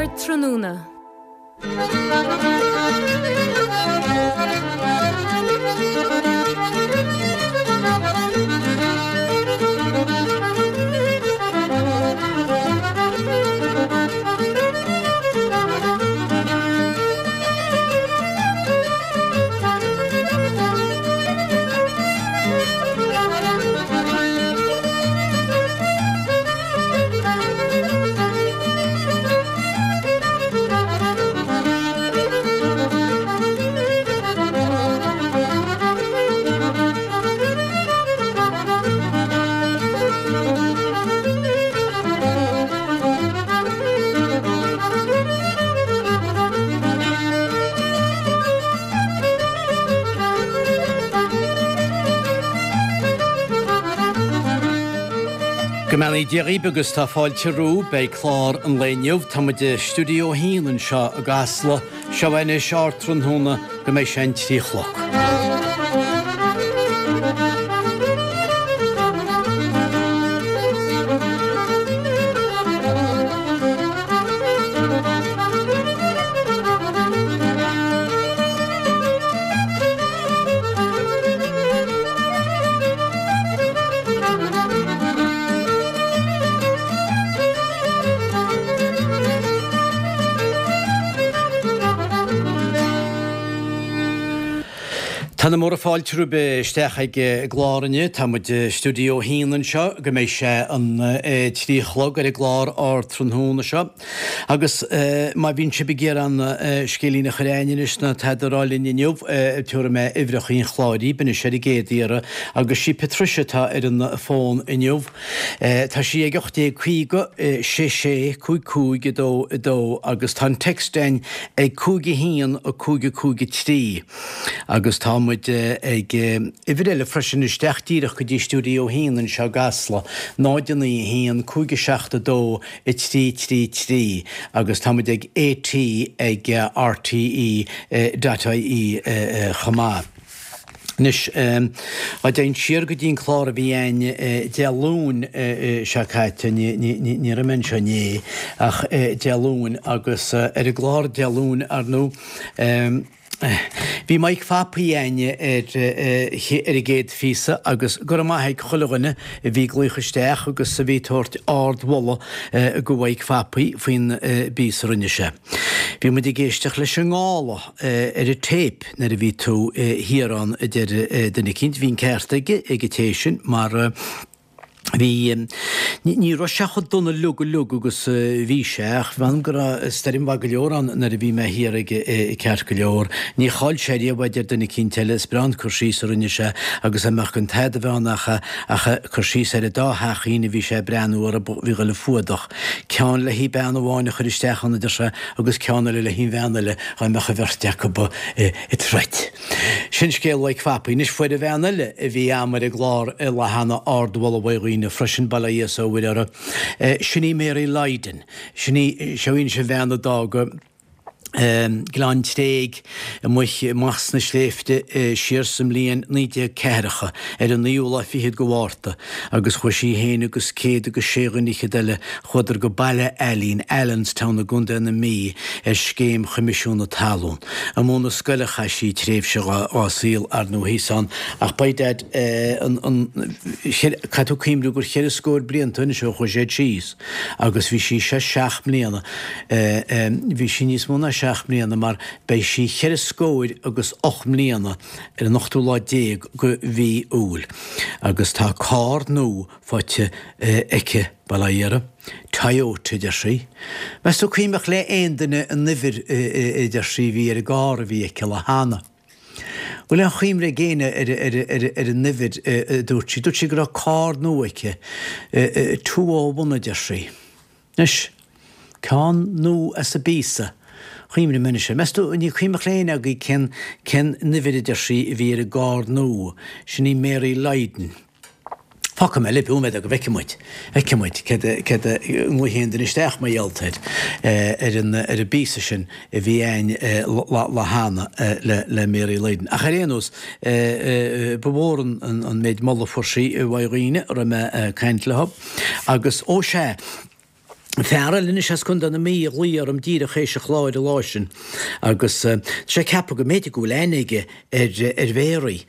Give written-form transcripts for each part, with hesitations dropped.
Ardtráthnóna. Go mbeannaí Dia dhaoibh agus tá fáilte romhaibh beidh clár an lae inniu. Tá muid i Stiúideo 1 anseo i gCasla. Seo anois Ardtráthnóna go mbeidh sé an 3 chlog. Tá na múra fáilte romhaibh isteach ag an gclár inniu. Tá muid i Stiúideo 1 anseo go mbeidh sé an 3 chlog ar an gclár Ardtráthnóna seo. Agus má bhíonn sibh ag iarraidh an scéilín a chur a'ainn anois ná tada a rá linn inniu, tabharfaidh mé uimhreacha an chláir dhaoibh anois ar an gcéad iarraidh. Agus sí Patricia atá ar an bhfón inniu. Tá sí ag 1850 6 6 5 5 2 2 agus tá an text a'ainn ag 5 1 5 5 3. Agus tá muid ag uimhir eile freisin isteach díreach go dtí Stiúideo 1 anseo i gCasla, 0 9 1 5 7 2 3 3 3 agus tá muid ag AT ag RTE dot ie chomh maith. Anois, dá dtéinn siar go dtí an clár a bhí a'ainn Dé Luain seo caite, ní raibh mé anseo inné, ach Dé Luain agus ar an gclár Dé Luain, ar ndóigh, Bhí Mike Phapaí a'ainn ar ar an gcéad phíosa agus go raibh maith ag chuile dhuine a bhí ag glaoch isteach agus a bhí ag tabhairt ard-mholadh go Mhaidhc Phapaí faoin bpíosa a rinne sé. Bhí muid ag éisteacht leis an ngála ar an téip nuair a bhí tú thiar ann a deir duine eicínt. Bhí an ceart aige ag an té sin mar Bhí, ní raibh sé chomh dona uilig uilig agus a bhí sé, ach mh'anam go raibh stoirm mhaith go leor ann nuair a bhí mé thiar aige ceart go leor. Ní chaill sé riamh a deir duine eicínt eile, is breá an cur síos a rinne sé agus dá mbeadh gan tada a bheith ann ach, ach cur síos ar an dá theachín a bhí sé ag breathnú orthu, bhí dhul a fuadach. Ceann le haghaidh bean amháin a chur isteach ann a deir sé agus ceann eile le haghaidh an bhean eile dhá mbeadh an bheirt acu ag troid. Sin scéal Mhaidhc Phapaí. Anois fuair an bhean eile a bhí a'm ar an gclár an lá cheana ardmholadh uaidh dhaoine freisin, bail ó Dhia is ó Mhuire uirthi. Sin í Mary Lydon. Sin í, seo í anois an bhean a d'fhág Gleann Tréig amuigh amach sna sléibhte siar sa mbliain 19 ceathracha ar an naoú lá fichead go Mhárta agus chuaigh sí féin agus céad agus sé dhuine fhichead eile Chuadar go Baile Ailín, Allenstown i gContae na Mí ar scéim Choimisiún na Talún. Amuigh 'na scoil a chaith sí tréimhse dhá saol, ar ndóigh, thíos ann, ach by dad, an, an, caithfidh tú cuimhniú gur cheithre scór blianta anois ó chuaigh siad síos agus bhí sí sé seacht mbliana, bhí sí níos mó ná seacht mbliana mar beidh sí cheithre scóir agus ocht mbliana ar an ochtú lá déag go mhí Iúil agus tá carr nua faighte aici, bail ó Dhia uirthi. Toyota, a deir sí. Meas tú cuimhneach le aon duine an uimhir, a deir sí, a bhí ar an gcarr a bhí aici lá cheana. Bhfuil aon chuimhne ag éinne ar an uimhir a dúirt sí? Dúirt sí go raibh carr nua aici. 201, a deir sí. Anois, ceann nua as an bpíosa. Chuimhnigh mé anois air. Meas tú, ní cuimhneach le éinne agaibh cén, cén uimhir a deir sí a bhí ar an gcarr nua. Sin í Mary Lydon. Fágfaidh mé libh nóiméad go bhfeicfidh muid, feicfidh muid céard a, céard a, nglaofaidh aon duine isteach mar gheall air, ar an, ar an bpíosa sin a bhí a'ainn lá, lá cheana le, le Mary Lydon. Ach ar aon nós, ba mhór an, an, an méid moladh a fuair sí uaidh dhaoine a raibh mé ag caint leo. Agus, ó sea! Fear eile anois as Contae na Mí a ghlaoigh orm díreach théis an chláir an lá sin agus tá sé ag ceapadh go mb'fhéidir go bhfuil aithne aige ar ar Mhéaraí,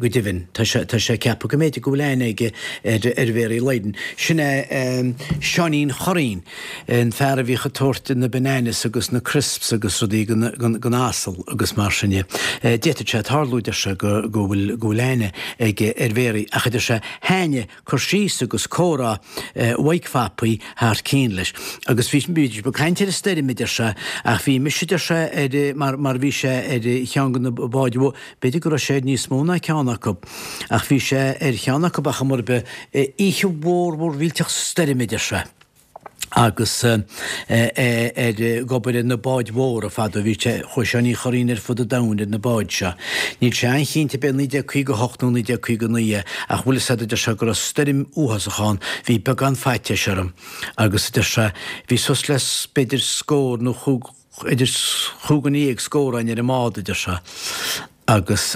go deimhin. Tá sé tá sé ag ceapadh go mb'fhéidir go bhfuil aithne aige ar ar Mhéaraí Lydon. Sin é Seáinín Churraoin, an fear a bhíodh ag tabhairt na bananas agus na crisps agus rudaí don don asal agus mar sin de. D'fhéadfadh sé tarlú, deir sé, go go bhfuil go bhfuil aithne aige ar Mhéaraí ach a deir sé, thaitnigh cur síos agus comhrá Mhaidhc Phapaí thar cionn leis. Agus bhí, bhí ag caint ar an stoirm, a deir sé, ach bhí mise, a deir sé, ar, mar, mar bhí sé ar cheann de na báid mhóra, b'fhéidir go raibh sé ar níos mó ná ceann acu, ach bhí sé ar cheann acu ar chuma ar bith, oíche mhór mhór mhillteach stoirme, a deir sé. agus é ag obair ar na báid mhóra fadó. Bhí sé, chuaigh Seáinín Churraoin ar fud an domhain ar na báid seo. Níl sé an-chinnte ab é 1958 nó 1959 é ach bhfuil fhios a'd a deir sé go raibh stoirm uafásach ann, bhí beagán faitíos orm agus a deir sé bhí suas le b'fhéidir scór nó chúig, idir chúig dhuine dhéag scór againn ar an mbád a deir sé agus.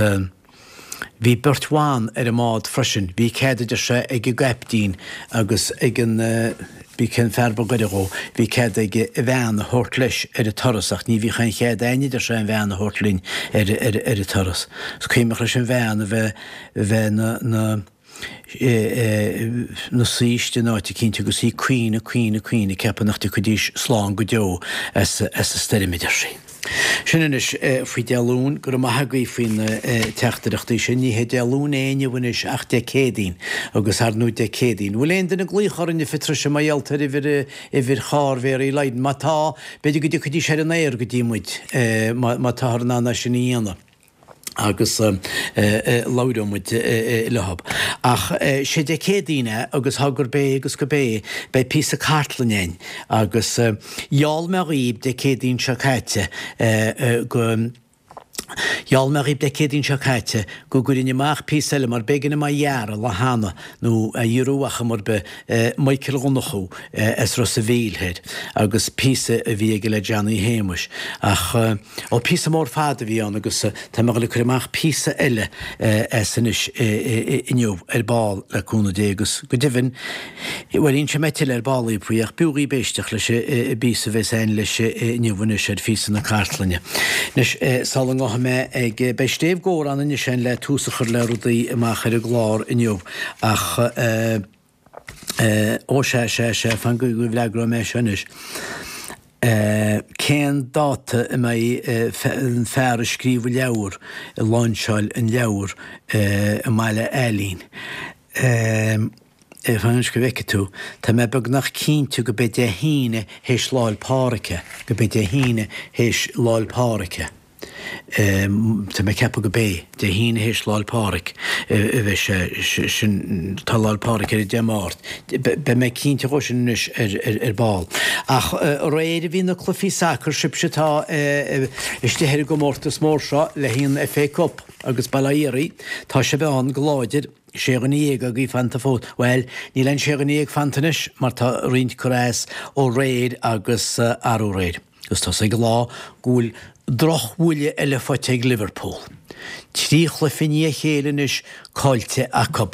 Bhí beirt bhan ar an mbád freisin. Bhí cead, a deir sé, ag an gcaiptín agus ag an, b'í cén fear ba ghaire dhó, bhí cead aige a bhean a thabhairt leis ar an turas ach ní bhíodh aon chead a'inn, a deir sé, an bhean a thabhairt linn ar, ar, ar an turas. Is cuimhneach leis an bhean a bheith, a bheith 'na, 'na, 'na suí istigh in áit eicínt agus í ag caoineadh, caoineadh, caoineadh, ag ceapadh nach dtiocfaidís slán go deo as an stoirm, a deir sí. Sin anois faoi Dé Luain, go raibh maith agaibh faoi na teachtaireachtaí sin. Ní hé Dé Luain é inniu anois ach Dé Céadaoin, agus ar ndóigh Dé Céadaoin. Bhfuil aon duine ag glaoch orainn a Phatricia mar gheall ar uimhir, uimhir charr Mhéaraí Lydon? Má tá, b'fhéidir go dtiocfaidís ar an aer go dtí muid, má táthar in ann é sin a dhéanamh. agus labhróidh muid leo. Ach sé Dé Céadaoin é agus tá gurb é agus gurb é, beidh píosa cartlainne a'inn agus gheall mé dhaoib Dé Céadaoin seo caite go, gheall mé dhaoib Dé Céadaoin seo caite go gcuirfinn amach píosa eile mar b'éigean dom é a ghearradh lá cheana nó a ghiorrú ar chuma ar bith, Michael Dhonnchú as Ros a' Mhíl thoir agus píosa a bhí aige le Johnny Shéamuis ach ó píosa mór fada a bhí ann agus tá mé ag dul ag cur amach píosa eile as anois inniu ar ball le cúnamh Dé agus go deimhin bhuel inseoidh mé tuilleadh ar ball daoibh faoi ach b'fhiú dhaoibh éisteacht leis an bpíosa a bheas a'inn leis inniu anois ar phíosa na cartlainne. Anois sula ngabhfaidh mé ag beidh Steve Gore ann anois le tús a chur le rudaí amach ar an gclár inniu ach ó sea, sea, sea, fan go bhfreagróidh mé seo anois. Cén dáta a mbeidh an fear a scríobh an leabhar ag láinseáil an leabhar i mBaile Ailín? Fan anois go bhfeicfidh tú. Tá mé beagnach cinnte go b'é Dé hAoine théis Lá 'le Pádraig é, go b'é Dé hAoine théis Lá 'le Pádraig é. Tá mé ag ceapadh go b'é Dé hAoine théis Lá 'le Pádraig a bheidh sé sin, tá Lá 'le Pádraig ar an Dé Máirt. Beidh mé cinnte dhó sin anois ar ball. Ach aréir a bhí na cluichí sacair, sibhse atá istigh ar an gcomórtas mór seo le haghaidh an FA Cup agus Baile Átha Iarthaigh, tá sibh ann go láidir, sé dhuine dhéag agaibh fanta fós. Bhuel, níl aon sé dhuine dhéag fanta anois mar tá roinnt curtha as ó aréir agus arú aréir. Agus tá sé ag lá go bhfuil drochbhuille eile faighte ag Liverpool. 3 chluiche i ndiaidh a chéile anois caillte acu.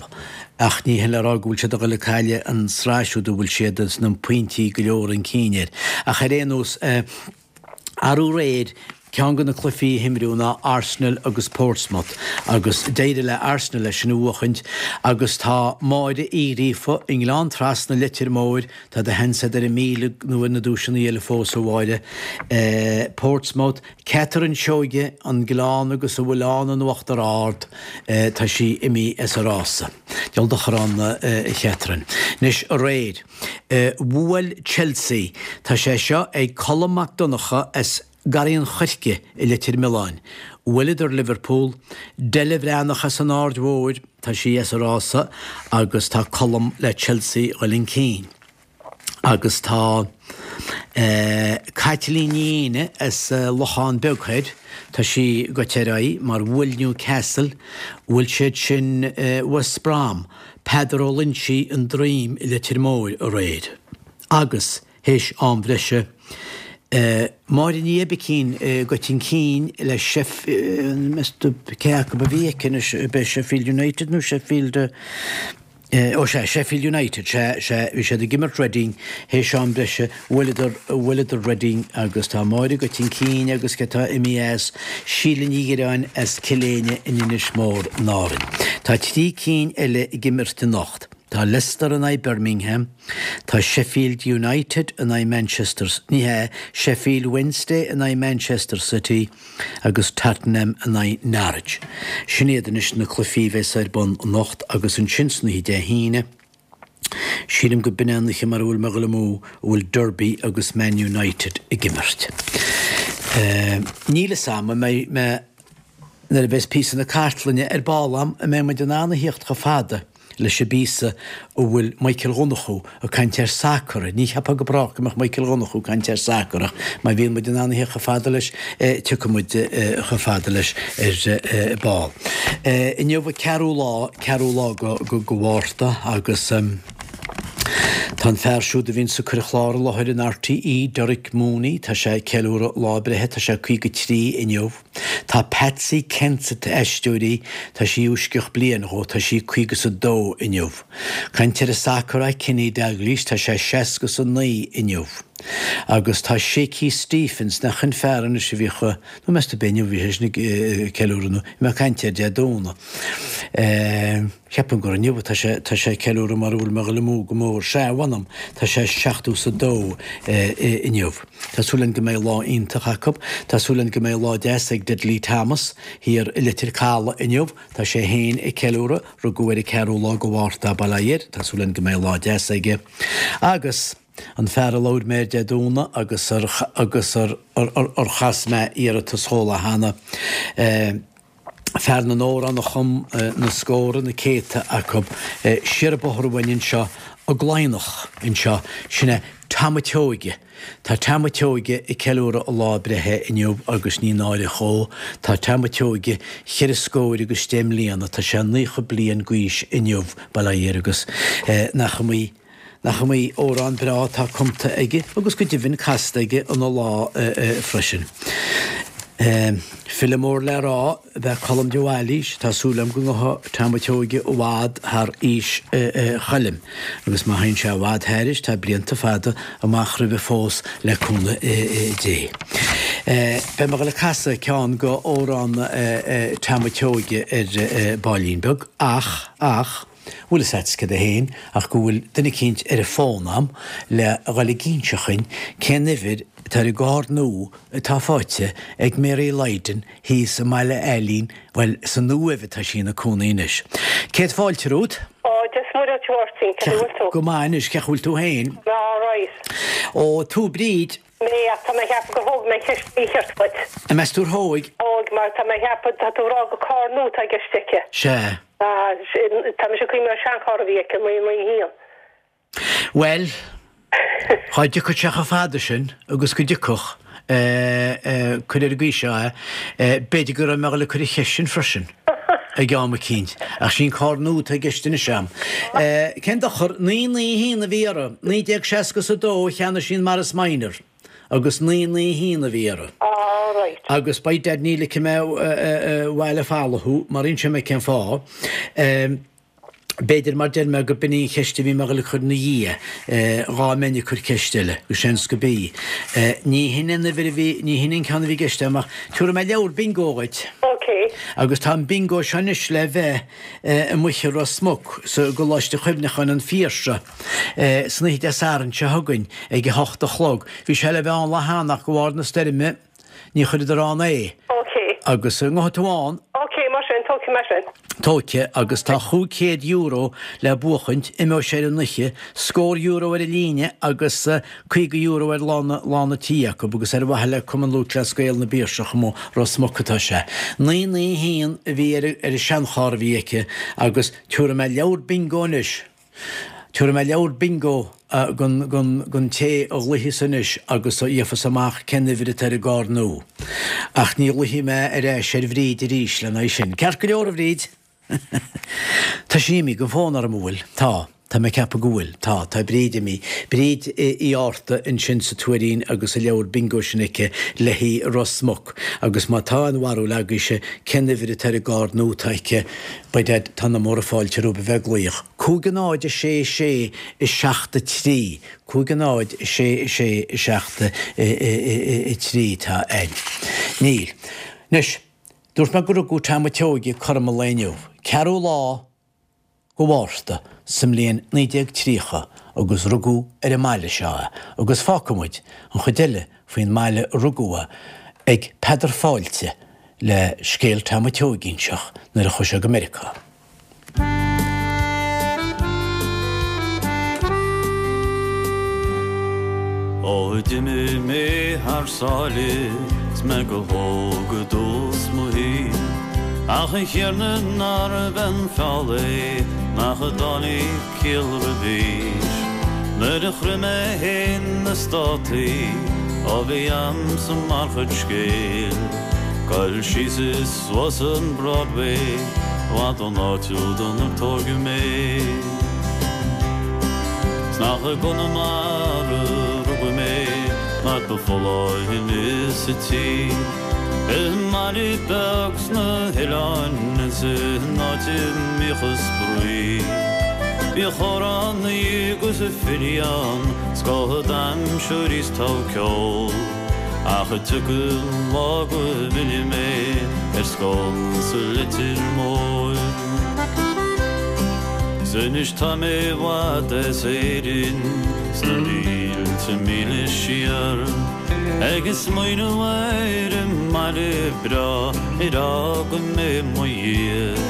Ach ní hin le rá go bhfuil siad ag dul ag cailleadh an sraith siúd a bhfuil siad sna pointí go leor chun cinn air. Ach ar aon nós, arú aréir, ceann de na cluichí a himríodh ná Arsenal agus Portsmouth agus d'éirigh le Arsenal é sin a bhuachaint agus tá Máire Uí Ghríofa i nGleann Trasna Leitir Móir Tá do sheans agat ar an 1,000 nó ar na duaiseanna eile fós, a Mháire. Portsmouth, Catherine Seoige, An Gleann agus a bhfuil ann in Uachtar Ard, tá sí imithe as an rása. Diabhal dochar ann a Chatherine. Anois, aréir, bhuail Chelsea. Tá sé seo ag Colm Mac Donncha as Garraí an Choirce i Leitir Mealláin. Bhuaileadar Liverpool, Della Bhreathnach as an Aird Mhóir, tá sí as an rása agus tá Colm le Chelsea dhul chun cinn. Agus tá Caitlín Ní Éinne as Lochán Beag Thoir, tá sí goite ar aghaidh mar bhuail Newcastle, bhuail siad sin West Brom, Peadar Ó Loinsigh, An Droim i Leitir Móir aréir. Agus. Théis am bhreise, Máire Ní Oibicín goite chun cinn le Sheffield, cé acu a bhí aici anois, ab é Sheffield United nó Sheffield? Ó sea, Sheffield United, sea, sea, bhí siad ag imirt Reading théis am breise, bhuaileadar, bhuaileadar Reading agus tá Máire agat chun cinn agus cé atá imithe as, Síle Ní Dhireáin as Cill Éinne in Inis Mór in Árainn. Tá trí cinn eile ag imirt anocht. Tá Leicester in aghaidh Birmingham, tá Sheffield United in aghaidh Manchester, ní hea, Sheffield Wednesday in aghaidh Manchester City, agus Tottenham in aghaidh Norwich. Sin iad anois na cluichí a bheas ar bun anocht agus ansin san oíche Dé hAoine, sílim go b'in é an oíche mara bhfuil mé ag dul amú, a bhfuil Derby agus Man United ag imirt. Níl fhios a'm an mbeidh mé, nuair a bheas píosa na cartlainne ar ball a'm, an mbeidh muid in ann a thíocht chomh fada leis an bpíosa a bhfuil Michael Dhonnchú ag caint ar sacar. Ní cheapfá go brách go mbeadh Michael Dhonnchú ag caint ar sacar ach má bhíonn muid in ann a thíocht chomh fada leis, tiocfaidh muid chomh fada leis ar ball. Inniu an ceathrú lá, ceathrú lá go Mhárta agus tá an fear siúd a bhíonns ag cur an chlár i láthair in RTÉ, Derek Mooney, tá sé ag ceiliúradh lá breithe, tá sé 53 inniu. Tá Patsy Kensit Aisteoirí, tá sí uaisceach bliain dhó, tá sí caoga 's a dó inniu. Caint ar an sacar é Kenny Dalglish, tá sé seasca 's a naoi inniu. Agus tá Shaky Stephens, nach in fear anois a bhíodh, nó meas tú ab é inniu a bhí seisean ag ceiliúradh nó bhí mé ag caint air Dé Domhnaigh. Ceapaim gur inniu atá sé, tá sé ag ceiliúradh mara bhfuil mé ag dul amú go mór. Sea, mh'anam, tá sé seachtó 's a dó inniu. Tá súil againn go mbeidh lá iontach acu. Tá súil againn go mbeidh lá deas ag Dudley Thomas thiar i Leitir Caladh inniu. Tá sé féin ag ceiliúradh, rugadh ar an ceathrú lá go Mhárta bail ó Dhia air. Tá súil againn go mbeidh lá deas aige. Agus an fear a labhair mé air Dé Domhnaigh agus ar agus ar ar chas mé iarratas dhó lá cheana, fear na n-amhrán a chum na scórtha, na céadta acu, siar an bóthar uainn anseo i gCladhnach anseo, sin é Tom a' tSeoighe. Tá Tom a' tSeoighe ag ceiliúradh a lá breithe inniu agus ní náire dhó, tá Tom a' tSeoighe cheithre scóir agus deich mbliana, tá sé 90 bliain d'aois inniu, bail ó Dhia air agus nach iomaí Nach iomaí amhrán breá atá cumta aige agus go deimhin casta aige ina lá freisin. File mór le rá ab ea Colm de Bhailís, tá súil agam go ngabhfaidh Tom a' tSeoighe i bhfad thar aois Choilm agus má théann sé i bhfad thairis tá blianta fada amach roimhe fós le cúnamh Dé. Beidh mé ag dul ag casadh ceann go amhrán Tom a' tSeoighe ar baillín beag ach, ach, Bhfuil fhios a'd céard é féin ach go bhfuil duine eicínt ar an bhfón a'm le dhul ag inse dhuinn cén uimhir atá ar an gcarr nua atá faighte ag Mary Lydon thíos i mBaile Ailín, bhuel, sa Uaimh atá sí ina cónaí anois. Céad fáilte romhat. Ó, Dia 's Muire dhuit a Mháirtín, cén chaoi a bhfuil tú? Go maith anois, cén chaoi a bhfuil tú féin? Mé alright. Ó, tú Bríd. Mé, ach tá mé a cheapadh gur thóg mé an cheist mhícheart uait. An meas tú ar thóig? Thóg, mar tá mé a cheapadh, tá tú ag rá gur carr nua atá i gceist aici. Sea. Ah, tá mise ag cuimhneamh ar seancharr a bhí aici, 991. Bhuel, dhá dtiocfadh sé chomh fada sin agus go dtiocfadh, cuir ar an gcaoi seo é, b'fhéidir go raibh mé ag dul ag cur an cheist sin freisin ag am eicínt, ach sí an carr nua atá i gceist anois a'm. Cén dochar, 991 a bhí uirthi, 1962 a cheannaigh sí an Morris Minor agus 991 a bhí uirthi. Ah, right. Agus by dad ní ligfidh mé abhaile folamh thú, mar inseoidh mé cén fáth. B'fhéidir, mar deir mé, go b'in í an cheist a bhí mé ag dul a cur ina dhiaidh, dhá mbeinn ag cur ceist eile, go seans go b'í. Ní hin an uimhir a bhí, ní hin an ceann a bhí i gceist agam ach tabharfaidh mé leabhar bingo dhuit. Ok. Agus tá an bingo seo anois le bheith amuigh i Ros Muc, sa gColáiste Chuimhneacháin an Phiarsaigh, san oíche Dé Sathairn seo chugainn ag a hocht a chlog. Bhí sé le bheith ann lá cheana ach de bharr na stoirme, Ní chuireadar ann é. Ok. Agus an ngabhfaidh tú ann? Ok, mar sin, tógfaidh mé sin. Tógfaidh, agus tá €500 le buachaint, imeoidh sé ar an oíche, scór euro ar an líne agus €50 ar lá na, lá na tí acu agus ar mhaithe le Cumann Lúthchleas Gael na bPiarsach amuigh Ros Muc atá sé. 991 a bhí ar, ar an seancharr a bhí aici agus tabharfaidh mé leabhar bingo anois. Tabharfaidh mé leabhar bingo don té a ghlaofas anois agus a gheofas amach cén uimhir atá ar an gcarr nua. Ach ní ghlaofaidh mé ar ais ar Bhríd arís lena aghaidh sin. Ceart go leor, a Bhríd? Tá sí imithe den bhfón orm, an bhfuil? Tá. Tá mé ag ceapadh go bhfuil. Tá. Tá Bríd imithe. Bríd Uí Fhátharta ansin sa Tuairín agus an leabhar bingo sin aici le haghaidh Ros Muc. Agus má tá aon bharúil agaibhse cén uimhir atá ar an gcárd nua atá aici, by dad, tá na móra fáilte romhaibh a bheith ag glaoch. 5 0 6 6 7 3. 5 0 6 6 7 3 tá ann. Níl. Anois, dúirt mé go rugadh Tom a' tSeoighe cothrom an lae inniu. Ceathrú lá go Mhárta sa mbliain 1930 agus rugadh ar an mbaile seo é agus fágfaidh muid an chuid eile faoin mbaile a rugadh é ag Peadar Fáilte le scéal Tom a' tSeoighe a inseacht nuair a chuaigh sé go Meiriceá. Ó d'imigh mé thar sáile 's mé go hóg i dtús mo shaoil, Ach a Thiarna nárbh an feall é nach dtáinig ciall roimhis. Nuair a shroich mé fhéin na Státaí, ó bhí a'msa mar chuid scéil, Goil síos is suas an Broadway, i bhfad ón áit údan ar tóigeadh mé. 'S nach i gConamara rugadh mé, mar ba folláine sa tír. I mbaile beag sna hoileáin is in áit a mbíodh an spraoi. Bhíodh amhránaí agus filí ann, scoth d'aimsir is togha ceoil. Ach tiocfaidh an lá go bhfillfidh mé ar scun sa Leitir Móir. 'S anois tá mé i bhfad as Éirinn, sna mílte míle siar, Ag smaoineamh ar an mbaile breá ar fhág mé i mo dhiaidh.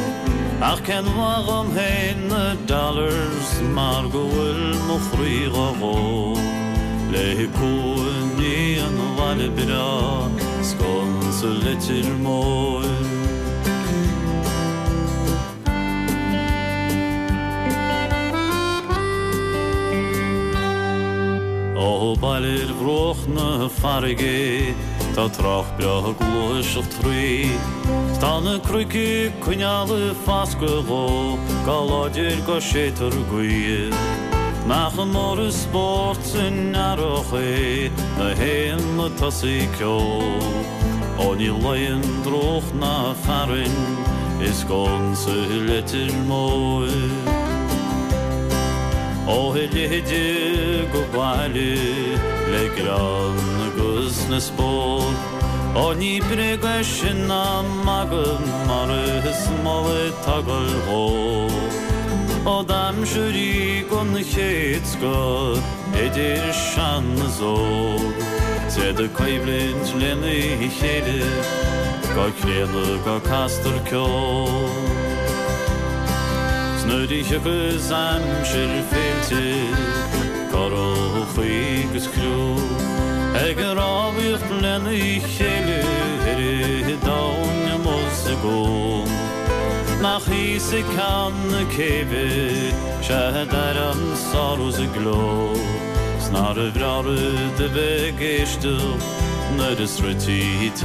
Ach cén mhaith dhom féin na dollars mar go bhfuil mo chroí dhá dhó Le cuimhní an bhaile breá scun sa Leitir Móir. Ó baile ar bhruach na farraige tá trách breá ag gluaiseacht thrí. 'S tá na cnoic ag coinneáil fascadh dhó go láidir go séidtear gaoth. Nach mór an spórt san earrach é na héanlaith tosaí ceol. Ó ní luíonn drúcht ná fearthainn i scun sa Leitir Móir. Ó a leithéide go baile le greann agus le spórt. Ó ní bréag é sin ná magadh mar is mall atá ag goil dhó. Ó d'aimsir í den chéad scoth idir sean is óg. 'S iad ag coimhlint lena chéile go críonna go castar ceol. 'S nuair a thiocfas aimsir féilte, currachaí 'gus criú ag rámhaíocht lena chéile ar an domhan amuigh sa gcuan. Nach thíos ag ceann na céibhe 'sea d'airím an sárú 's an gleo 's nárbh bhreá rud a bheith ag éisteacht nuair a sroichtí teach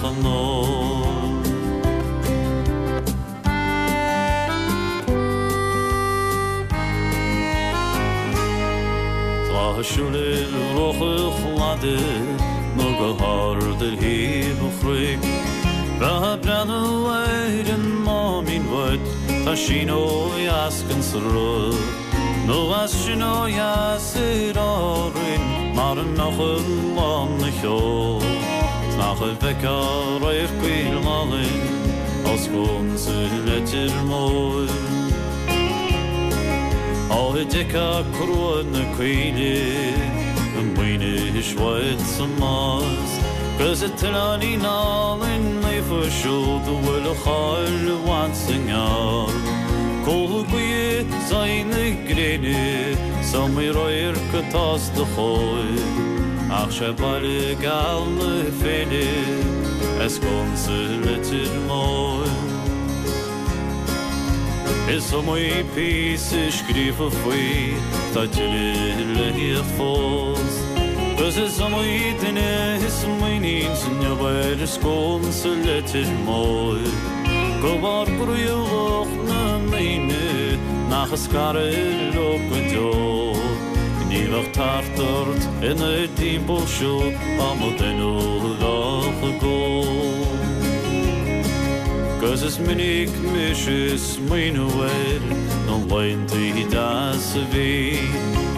an óil. Lá ag siúl ar bhruach an chladaigh nó go hard ar thaobh an chnoic. Bheifeá ag breathnú ar an Máimín uait, tá sin ó dheas den sruth. Nó as sin ó dheas ar Árainn mar a mbeadh an lán 'na sheol. 'S nach bhfeicfeá radharc álainn ó sconsa Leitir Móir. Ó d'fheicfeá crua na coille i Maínis uait sa Nás, 'gus an t-oileáinín álainn naofa siúd a bhfuil a cháil i bhfad 's i ngearr. Cúl gaoithe 's aghaidh na gréine 's iomaí radharc atá os do chomhair, ach 'sé baile geal na féile é sconsa Leitir Móir. Is iomaí píosa scríofa faoi, tá tuilleadh le theacht fós. 'Gus is iomaí duine a smaoiníonns inniu ar sconsa Leitir Móir. Go bharr groí lucht na ndaoine. Ach ag scaradh leo go deo. Ní bheadh tart ort ina dtimpeall siúd dá mba duine a bheadh ag ól. 'Gus is minic mise ag smaoineamh ar na laethantaí deasa a bhí,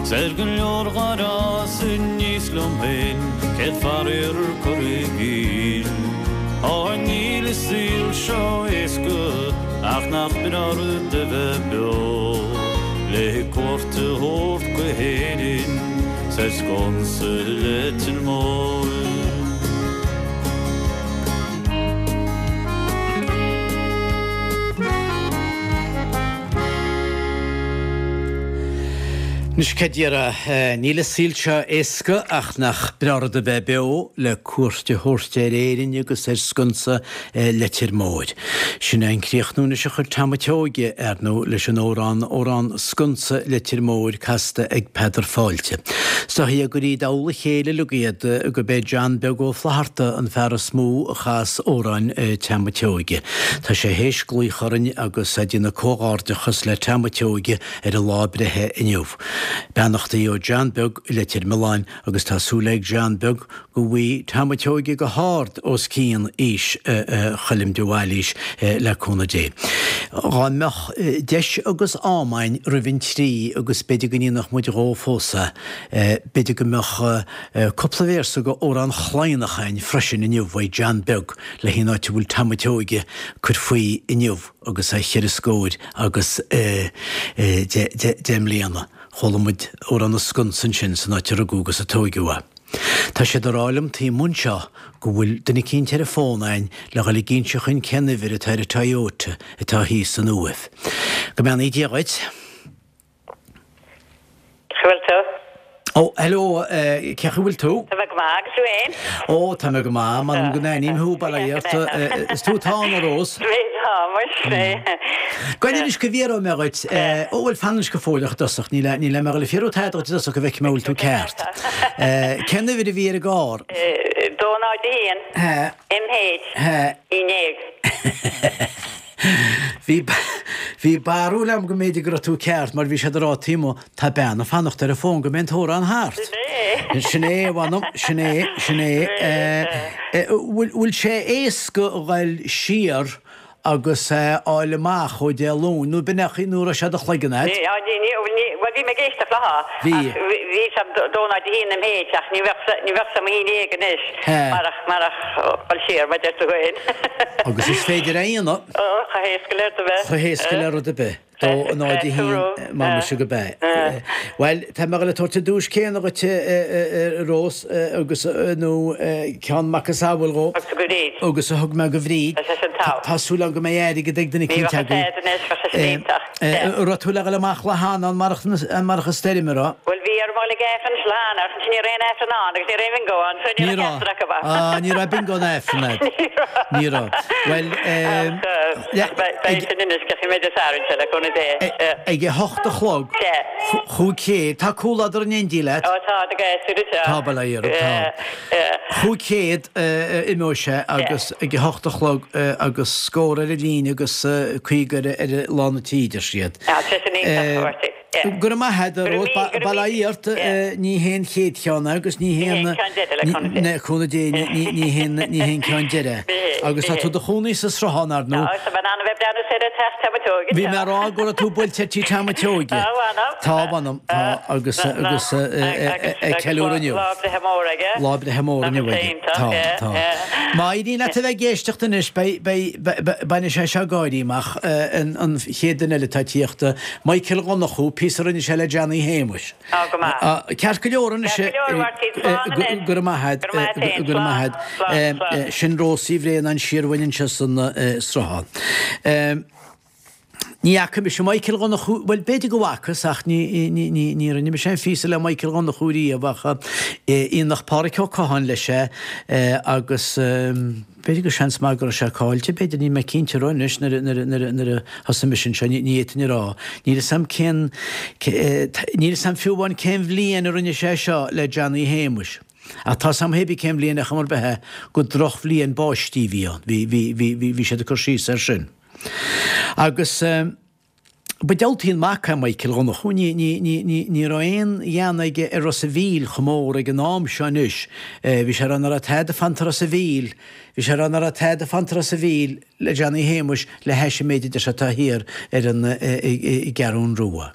's ar go leor dhár fhás aníos liom féin, céad faraor curtha i gcill. Á níl an saol seo éasca ach nach breá an rud a bheith beo, le cuairt a thabhairt go hÉirinn 's ar sconsa Leitir Móir. Anois cad déarfá, níl an saol seo éasca ach nach breá an rud a bheith beo le cuairt a thabhairt ar Éirinn agus ar sconsa Leitir Móir. Sin é an críochnú anois a chuir Tom a' tSeoighe, ar ndóigh, leis an amhrán, Amhrán Sconsa Leitir Móir casta ag Peadar Fáilte. Is dóichí gur i dtoll a chéile uilig iad, gurb é John Beag Ó Flatharta an fear is mó a chas amhráin Tom a' tSeoighe. Tá sé théis glaoch orainn agus é ag déanamh comhghairdeachas le Tom a' tSeoighe ar a lá breithe inniu. Beannachtaí ó John Beag i Leitir Mealláin agus tá súil ag John Beag go bhfaighidh Tom a' tSeoighe go hard os cionn aois Choilm de Bhailís le cúnamh Dé. Dhá mbeadh deis agus am a'inn roimh an trí agus b'fhéidir go ndéanfadh muid dhó fós é, b'fhéidir go mbeadh cúpla véarsa go Amhrán Chladhnach a'inn freisin inniu uaidh John Beag le haghaidh an áit a bhfuil Tom a' tSeoighe ag cur faoi inniu agus é cheithre scóir agus deich mbliana. Chuala muid Amhrán na Sconsa ansin san áit a rugadh agus a tóigeadh é. Tá siad ag rá liom taobh amuigh anseo go bhfuil duine eicínt ar an bhfón a'inn le dhul ag inse chuinn cén uimhir atá ar an Toyota atá thíos san Uaimh. Go mbeannaí Dia dhuit. Cén chaoi bhfuil tú? Ó, hello, cén chaoi bhfuil tú? Tá mé go maith, agus tú fhéin? Ó, tá mé go maith, m'anam go n-aithním thú, bail ó Dhia ort. Is tú atá ann, a Rós? Tá, muis. Gabh anois go bhfiafróidh mé dhuit, ó bhuel fan anois go fóilleach i dtosach, níl níl mé ag dul ag fiafraí tada dhuit i dtosach go bhfeicfidh mé an bhfuil tú ceart. Cén uimhir a bhí ar an gcarr? 2 0 1 MH 11. Bhí bhí barúil agam go mb'fhéidir go raibh tú ceart mar bhí siad ag rá taobh amuigh, tá bean ag fanacht ar an bhfón go mbeidh an t-amhrán thart. Sin é. Sin é, a mh'anam, sin é, sin é. Bhfuil bhfuil sé éasca a ghoil siar agus é a fháil amach ó Dé Luain, nó b'in é nó raibh sé i do chloigeann a'd? Ní, ní, ní, ní, bhuel bhí mé ag éisteacht léi, Bhí. ach bhí, bhí sé 2 0 1 MH ach ní bheadh, ní bheadh sé 11 anois marach, marach dhul siar, mar deir tú féin. Agus is féidir é a dhéanamh. Ó, chomh héasca le rud ar bith. Chomh héasca le rud ar bith. 2 0 1 M'anamsa go b'ea. Bhuel, tá mé ag dul ag tabhairt an duais céanna dhuit, a Rós, agus, nó ceann macasamhail dhó. Agus go Bríd. Agus a thug mé go Bhríd. Tá sé sin togha. Tá súil agam go mbeidh airgead ag duine Ní eicínt bheadh agaibh. tada anois, bheadh sé sin iontach. An raibh tú le dhul amach lá cheana, amárach amárach an stoirm, an raibh? Bhuel, bhí orm dhul ag Aifreann lá cheana, ach ansin ní raibh aon Aifreann ann agus ní raibh aon bhingo ann, so ní Ní raibh raibh. ceachtar acu ann. Ah, ní raibh bingo ná Aifreann a'd. Ní raibh. Ní raibh. Bhuel, Ach, le, ach beidh, beidh ag, sin anois, ceapfaidh mé Dé Sathairn seo, le cúnamh Dé. ag a hocht a chlog, Sea. chúig chéad, tá comhluadar in éindí leat? Ó, tá, tá gasúir anseo. Tá, bail ó Dhia orthu, tá. 500 imeoidh sé agus ag a hocht a chlog agus scór ar an líne agus 50 ar ar lán an tí, deir siad. Tá sé sin iontach, a Mháirtín. Go raibh maith agat, a Rós. Bail ó Dhia ort. Ní hé an chéad cheann é agus ní hé an le cúnamh Dé ní hé an ceann deiridh. Agus tá tú i do chónaí sa Sruthán, ar ndóigh. Tá, tá mé in ann a bheith ag breathnú soir ar teach Tom a' tSeoighe. Bhí mé ag rá go raibh tú buailte ar tí Tom a' tSeoighe. Tá, mh'anam. Tá, mh'anam, tá, agus, agus ag ceiliúradh inniu. Lá breithe mór aige. Lá breithe mór inniu aige. Tá, tá. Má éiríonn leat a bheith ag éisteacht anois, beidh, beidh, bainfidh sé seo gáirí amach, an chéad duine eile atá ag tíocht, Michael Dhonnchú, píosa a rinne sé le Johnny Shéamuis. Tá go maith. Ceart go leor anois. Ceart go leor, Mháirtín, slán anois. Go raibh maith agat. Go raibh maith agat féin. Go raibh maith agat. Slán, slán, slán. Sin Rós Uí Bhraonáin siar uainn anseo san Sruthán. Ní fhaca mise Michael Dhonnchú, bhuel b'fhéidir go bhfacas ach ní, ní, ní, ní rinne mise aon phíosa le Michael Dhonnchú riamh ach Aonach Pádhraic Ó Catháin leis é agus b'fhéidir go seans maith go raibh sé caillte, b'fhéidir, níl mé cinnte raibh anois nuair a, nuair a, nuair a, nuair a thosaigh mise anseo, ní, ní fhéadfainn a rá. Níl fhios a'm cén, níl fhios a'm fiú amháin cén bhliain a rinne sé seo le Johnny Shéamuis. Ach tá 'fhios a'm hébí cén bhliain ar chuma ar bith é gur drochbhliain báistí a bhí ann, bhí, bhí, bhí, bhí, bhí siad ag cur síos air sin. Agus. Ba diabhaltaí an mac é Michael Dhonnchú, ní, ní, ní, ní, ní raibh aon ghean aige ar Ros a' Mhíl chomh mór ag an am seo anois. Bhí sé ag rá nach raibh tada fanta Ros a' Mhíl, bhí sé ag rá nach raibh tada fanta Ros a' Mhíl le Johnny Shéamuis le hais an méid a deir sé atá thiar ar an, i gCeathrún Rua.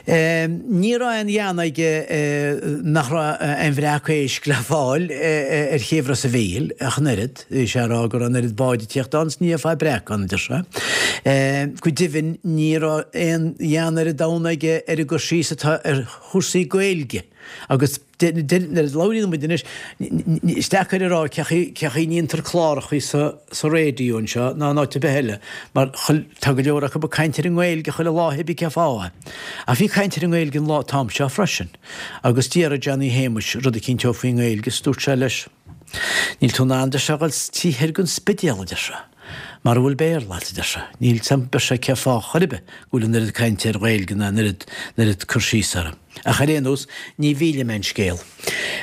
Ní raibh aon ghean aige nach raibh aon bhreac éisc le fáil ar chéibh Ros a' Mhíl ach an oiread. Bhí sé ag rá go raibh an oiread báid ag tíocht ann is ní fhéadfá breac ann, a deir sé. Go deimhin ní raibh aon ghean ar an domhan aige ar an gcur síos atá ar chúrsaí Gaeilge agus nuair a labhraíonn muid anois, is deacair a rá cé chaoi a ndéantar clárachaí sa raidió anseo ná in áit ar bith eile mar tá go leor acu ag caint ar an nGaeilge chuile lá cibé cén fáth é. Ach bhí caint ar an nGaeilge an lá t-am seo freisin agus d'fhiafraigh Johnny Shéamuis rud eicínt dhó faoin nGaeilge is dúirt sé leis, Níl tú in ann, deir sé, a dhul taobh thoir den Spidéal, a deir sé, mara bhfuil Béarla agat, a deir sé. Níl 's a'm, deir sé, cén fáth chor ar bith go bhfuil an oiread cainte ar Ghaeilge ná an oiread, an oiread cur síos uirthi. Ach ar aon nós, ní mhillfidh mé an scéal.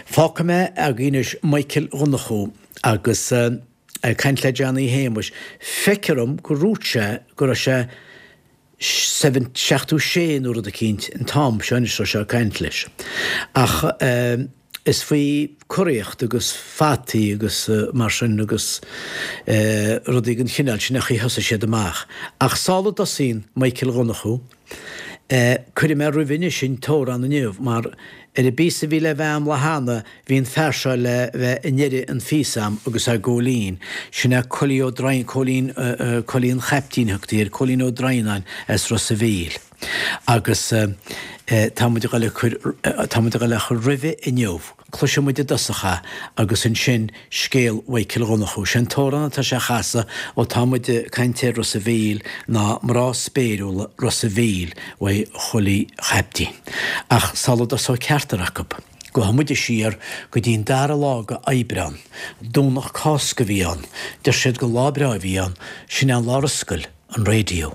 Fágfaidh mé agaibh anois Michael Dhonnchú agus ag caint le Johnny Shéamuis. Feictear dom gur dhúirt sé go raibh sé 76 nó rud eicínt an t-am seo anois raibh sé ag caint leis. Ach is faoi curaíocht agus fataí agus mar sin agus rudaí den chineál sin a chaoi thosaigh siad amach. Ach sula dtosaíonn Michael Dhonnchú, cuirfidh mé roimhe anois an t-amhrán inniu mar ar an bpíosa a bhí le bheith a'm lá cheana Bhí an fear seo le bheith i ndeireadh an phíosa a'm agus é Góilín. Sin é Coilí Ó Droighneáin, Cóilín, Coilí an Chaiptín a thugtaí air, Cóilín Ó Droighneáin as Ros a' Mhíl. Agus tá muid a dhul a cur, tá muid a dhul a chur roimhe inniu. Cloisfidh muid i dtosach é agus ansin scéal Mhichael Dhonnchú. Sé an t-amhrán atá sé a chasadh ó tá muid ag caint ar Ros a' Mhíl ná Mná Spéiriúla Ros a' Mhíl uaidh Choilí Chaiptín. Ach sula dtosóidh ceachtar acu. Gabhfaidh muide siar go dtí an dara lá de Aibreán. Domhnach Cásca a bhí ann. Deir siad gur lá breá a bhí ann. Sin é an lá ar oscail an raidió.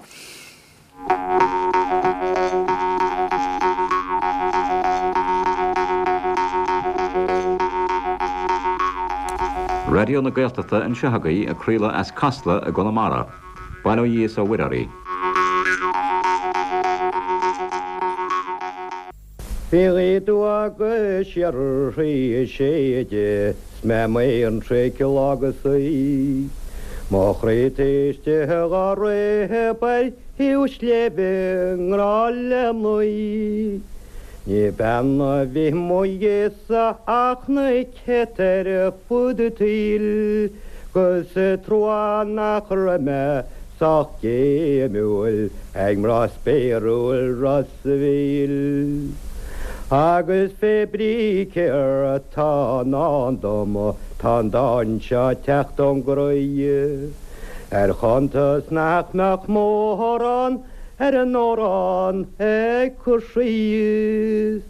Raidió na Gaeltachta anseo agaibh ag craoladh as Casla i gConamara. Bail ó Dhia is ó Mhuire oraibh. Bhí gaoth aduaidh agus síoraí ag séideadh 's mé amuigh ar an traic lá go saoi. Mo chroí taobh istigh dhá réab ar thaobh sléibhe i ngrá le mnaoi. Ní bean a bhí mo dhiaidh-sa ach na céadta ar fud an tsaoil 'gus is trua nach raibh mé sách géimiúil ag mná spéiriúil Ros a' Mhíl. Agus fé brí céard tá i ndán dom, tá an dán seo ag teacht ón gcroí. Ar chuntas nach mbeadh mórán ar an amhrán ag cur síos.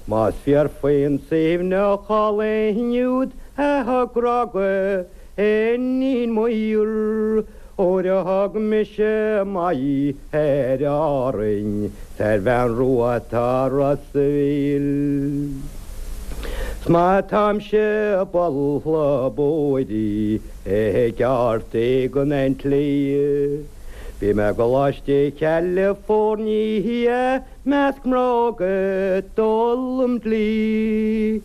Más fíor faoin Suibhneach álainn úd a thug grá go Iníon Muir, Óir a thug mise m'aghaidh ar Árainn 's ar bhean rua atá Ros a' Mhíl. 'S má táimse buartha buairí ag ardú go an tslí. Bhí mé i gColáiste Chalifornia measc mná óga ag d'fhoghlaim dlí.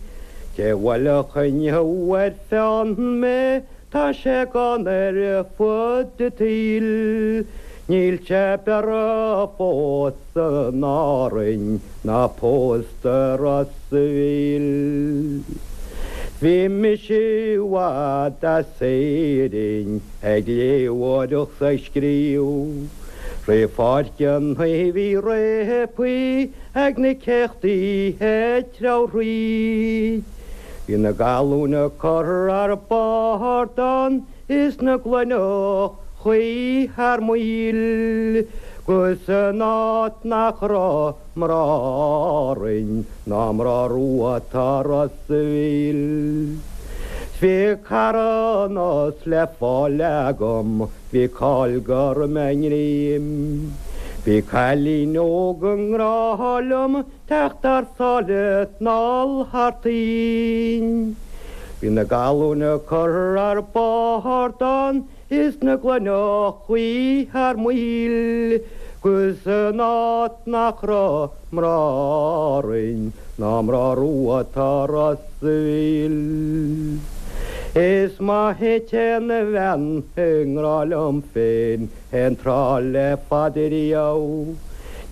Cé bhuailfeadh inniu ar pheann mé Tá sé gann ar fud an tsaoil, níl sé b'fhearra fós in Árainn ná pósta i Ros a' Mhíl. Bhí mise i bhfad as Éirinn ag léitheoireacht 's ag scríobh. Rith Pháirc an Naoimh bhí réabthaí ag na céachtaí ag treabhadh thríd. Bhí na galúin ag cur thar bord ann is na gloineachaí thar maoil 'gus in áit nach raibh mná Árainn ná mná rua atá Ros a' Mhíl. 'S bhí carthanas le fáil agam, bhí cáil go raibh mé i ngreim. Bhí cailín óg i ngrá liom Teacht thar sáile 'nall thar toinn. Bhí na galúin ag cur thar bord ann is na gloineachaí thar maoil. 'Gus san áit nach raibh mná righin ná mná rua tá Ros a' Mhíl. Is maith a téann a bhean i ngrá liom féin aon tráth le fada riamh.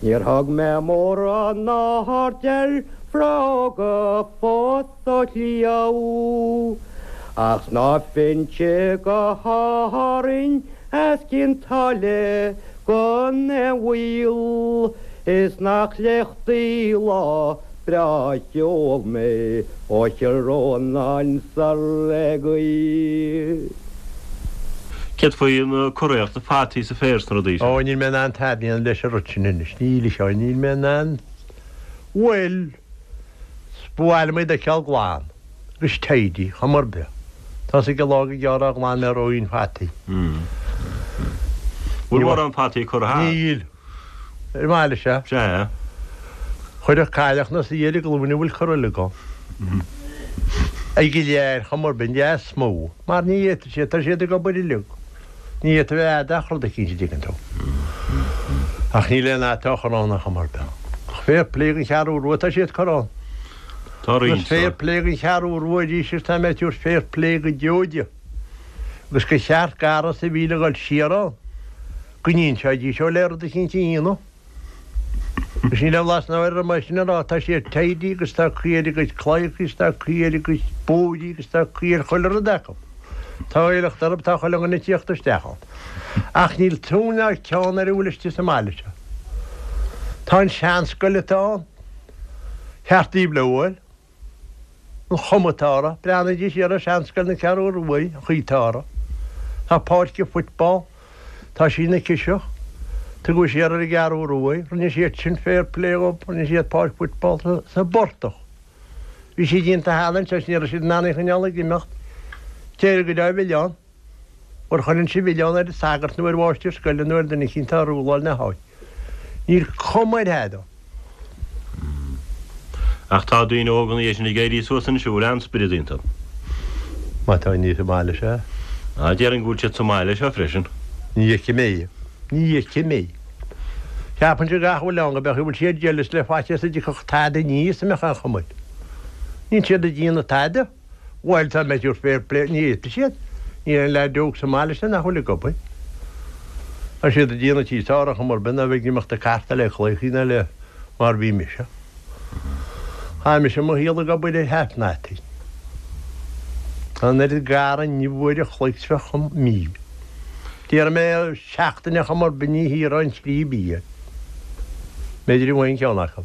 Níor thug mé mórán aird ar bhróga fós ó chliabh. Ach snámhfainnse go hÁrainn as Cionn tSáile gan aon mhoill, is nach léachtaí lá breá a sheol mé ó Chill Rónáin soir le gaoith. Céard faoi na curaíocht, na fataí is an féar is na rudaí sin? Ó, níl mé in ann tada a dhéanamh leis an rud sin anois, níl, a Sheáin, níl mé in ann, bhuel, ba mhaith liom iad a fheiceáil glan. Agus tidy, chuma ar bith. Tá's ag an lá go gearr a ghlan mé roinnt fataí. Bhfuil mórán fataí curtha thart? Níl. Ar an mbaile seo. Sea. Chuirfeadh cailleach na suí ar a glúine a bhfuil curtha uilig ann. Ag go léir, chuma ar bith, an dea is mó. Mar ní fhéadfaidh siad, tá siad ag obair uilig. Ní fhéadfaidh a bheith ach rud eicínt a dtuigeann tú. Ach níl aon fhata á chur ann ar chuma ar bith. Ach fair play don Cheathrú Rua, tá siad curtha ann. Tá roinnt Agus fair play don Cheathrú Rua arís agus tá mé ag tabhairt fair play go deo di. Agus gur cheart do Ros a' Mhíl a dhul siar ann, go n-inseoidís ó le rud eicínt a dhéanamh. Agus níl aon bhlas ná air orm é sin a rá, tá siad tidy agus tá caoi ar a gcuid claíochaí is tá caoi ar a gcuid bóithrí agus tá caoi ar chuile rud acu. Tá éileacht orthu, tá chuile dhuine ag tíocht isteach ann. Ach níl tóin ná ceann ar a bhfuil istigh sa mbaile seo. Tá an seanscoil atá ann, cheart daoibh le bhfuil. An chuma atá uirthi. Breathnaídís siar ar seanscoil na Ceathrú Ruaidh, an chaoi atá uirthi. Tá páirc an football, tá sí ina ciseach. Tugadh siar ar an gCeathrú Ruaidh, rinne siad sin fair play dhób, rinne siad páirc football sa bportach. Bhí sí déanta cheana anseo is ní raibh siad in ann í a choinneáil ag imeacht. D'éirigh go deo mhilleán. Mar chuireann sé milleán ar an sagart nó ar mháistir scoile nó ar duine eicínt atá ag rúláil na háite. Níl cuma ar thada. Ach tá daoine óga ina dhiaidh sin ag éirí suas anois a bhfuil an-spiorad iontu. Má tá inní sa mbaile seo. Ah, déarfainn go bhfuil siad sa mbaile seo freisin. Ní fheicim é. Ní fheicim é. Ceapainnse gach a bhfuil ann go mbeadh a bhfuil siad jealous le faitíos a dtiocfadh tada aníos a mbeadh aon chuma air. Níl siad ag déanamh tada. Bhuel, tá mé ag tabhairt fair play, ní fhéadfaidh siad. Níl aon leaid óg sa mbaile sin nach bhfuil ag obair. Tá siad ag déanamh tí sár ar chuma ar bith ná bheith ag imeacht ag cartáil le claíochaí ná le mar bhí mise. Chaith mise mo shaol ag obair ar half natty. Tá an oiread garraí inniu uair a chloig 's bheadh chun mí. Déarfaidh mé seachtain ar chuma ar bith ní thiarfá an tslí bia. B'fhéidir go bhfaighinn ceann acu.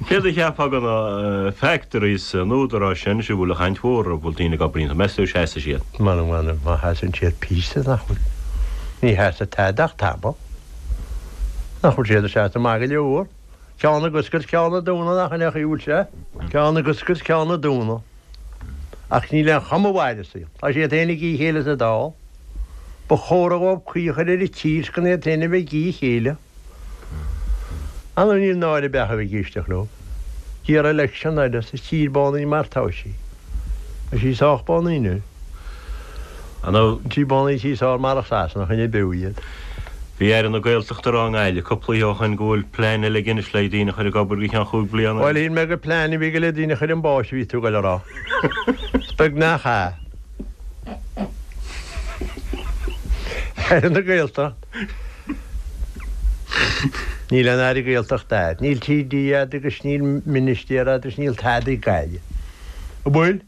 Céard a cheapfá de na factories an údaráis sin anois a bhfuil an chaint mhór orthu, bhfuil daoine ag obair iontu, meas tú seasfaidh siad? M'anam m'anam má sheasann siad píosa nach bhfuil, ní sheasfaidh tada ach tamall. Nach bhfuil siad ag seasamh maith go leor. Ceann ag oscailt, ceann ag dúnadh, nach in é an chaoi a bhfuil sé? Ceann ag oscailt, ceann ag dúnadh. Ach níl aon chuma mhaith ar an saol. Tá siad féin ag ithe a chéile sa Dáil. Ba chóra dhóibh caoi a chur ar an tír 's gan iad féin a bheith ag ithe a chéile. Anam níl náire beacha a bheith ag éisteacht leo. D'iarr election eile sa tír bánaí mar tá sí. Tá sí sách bánaí anois. An tí bánaí tí sár marach Sasana choinnigh beo iad. Bhí Aire na Gaeltachta ag rá i nGaillimh cúpla oíche ó shoin go bhfuil plean eile aige anois le daoine a chur ag obair go ceann chúig bliana. Bhuel shíl mé gur plean a bhí aige le daoine a chur chun báis a bhí tú ag goil a rá. Is beag nach ea. Aire na Gaeltacht. Níl aon Aire Gaeltachta a'd. Níl TD a'd agus níl Ministéir a'd agus níl tada ag Gaillimh. An bhfuil?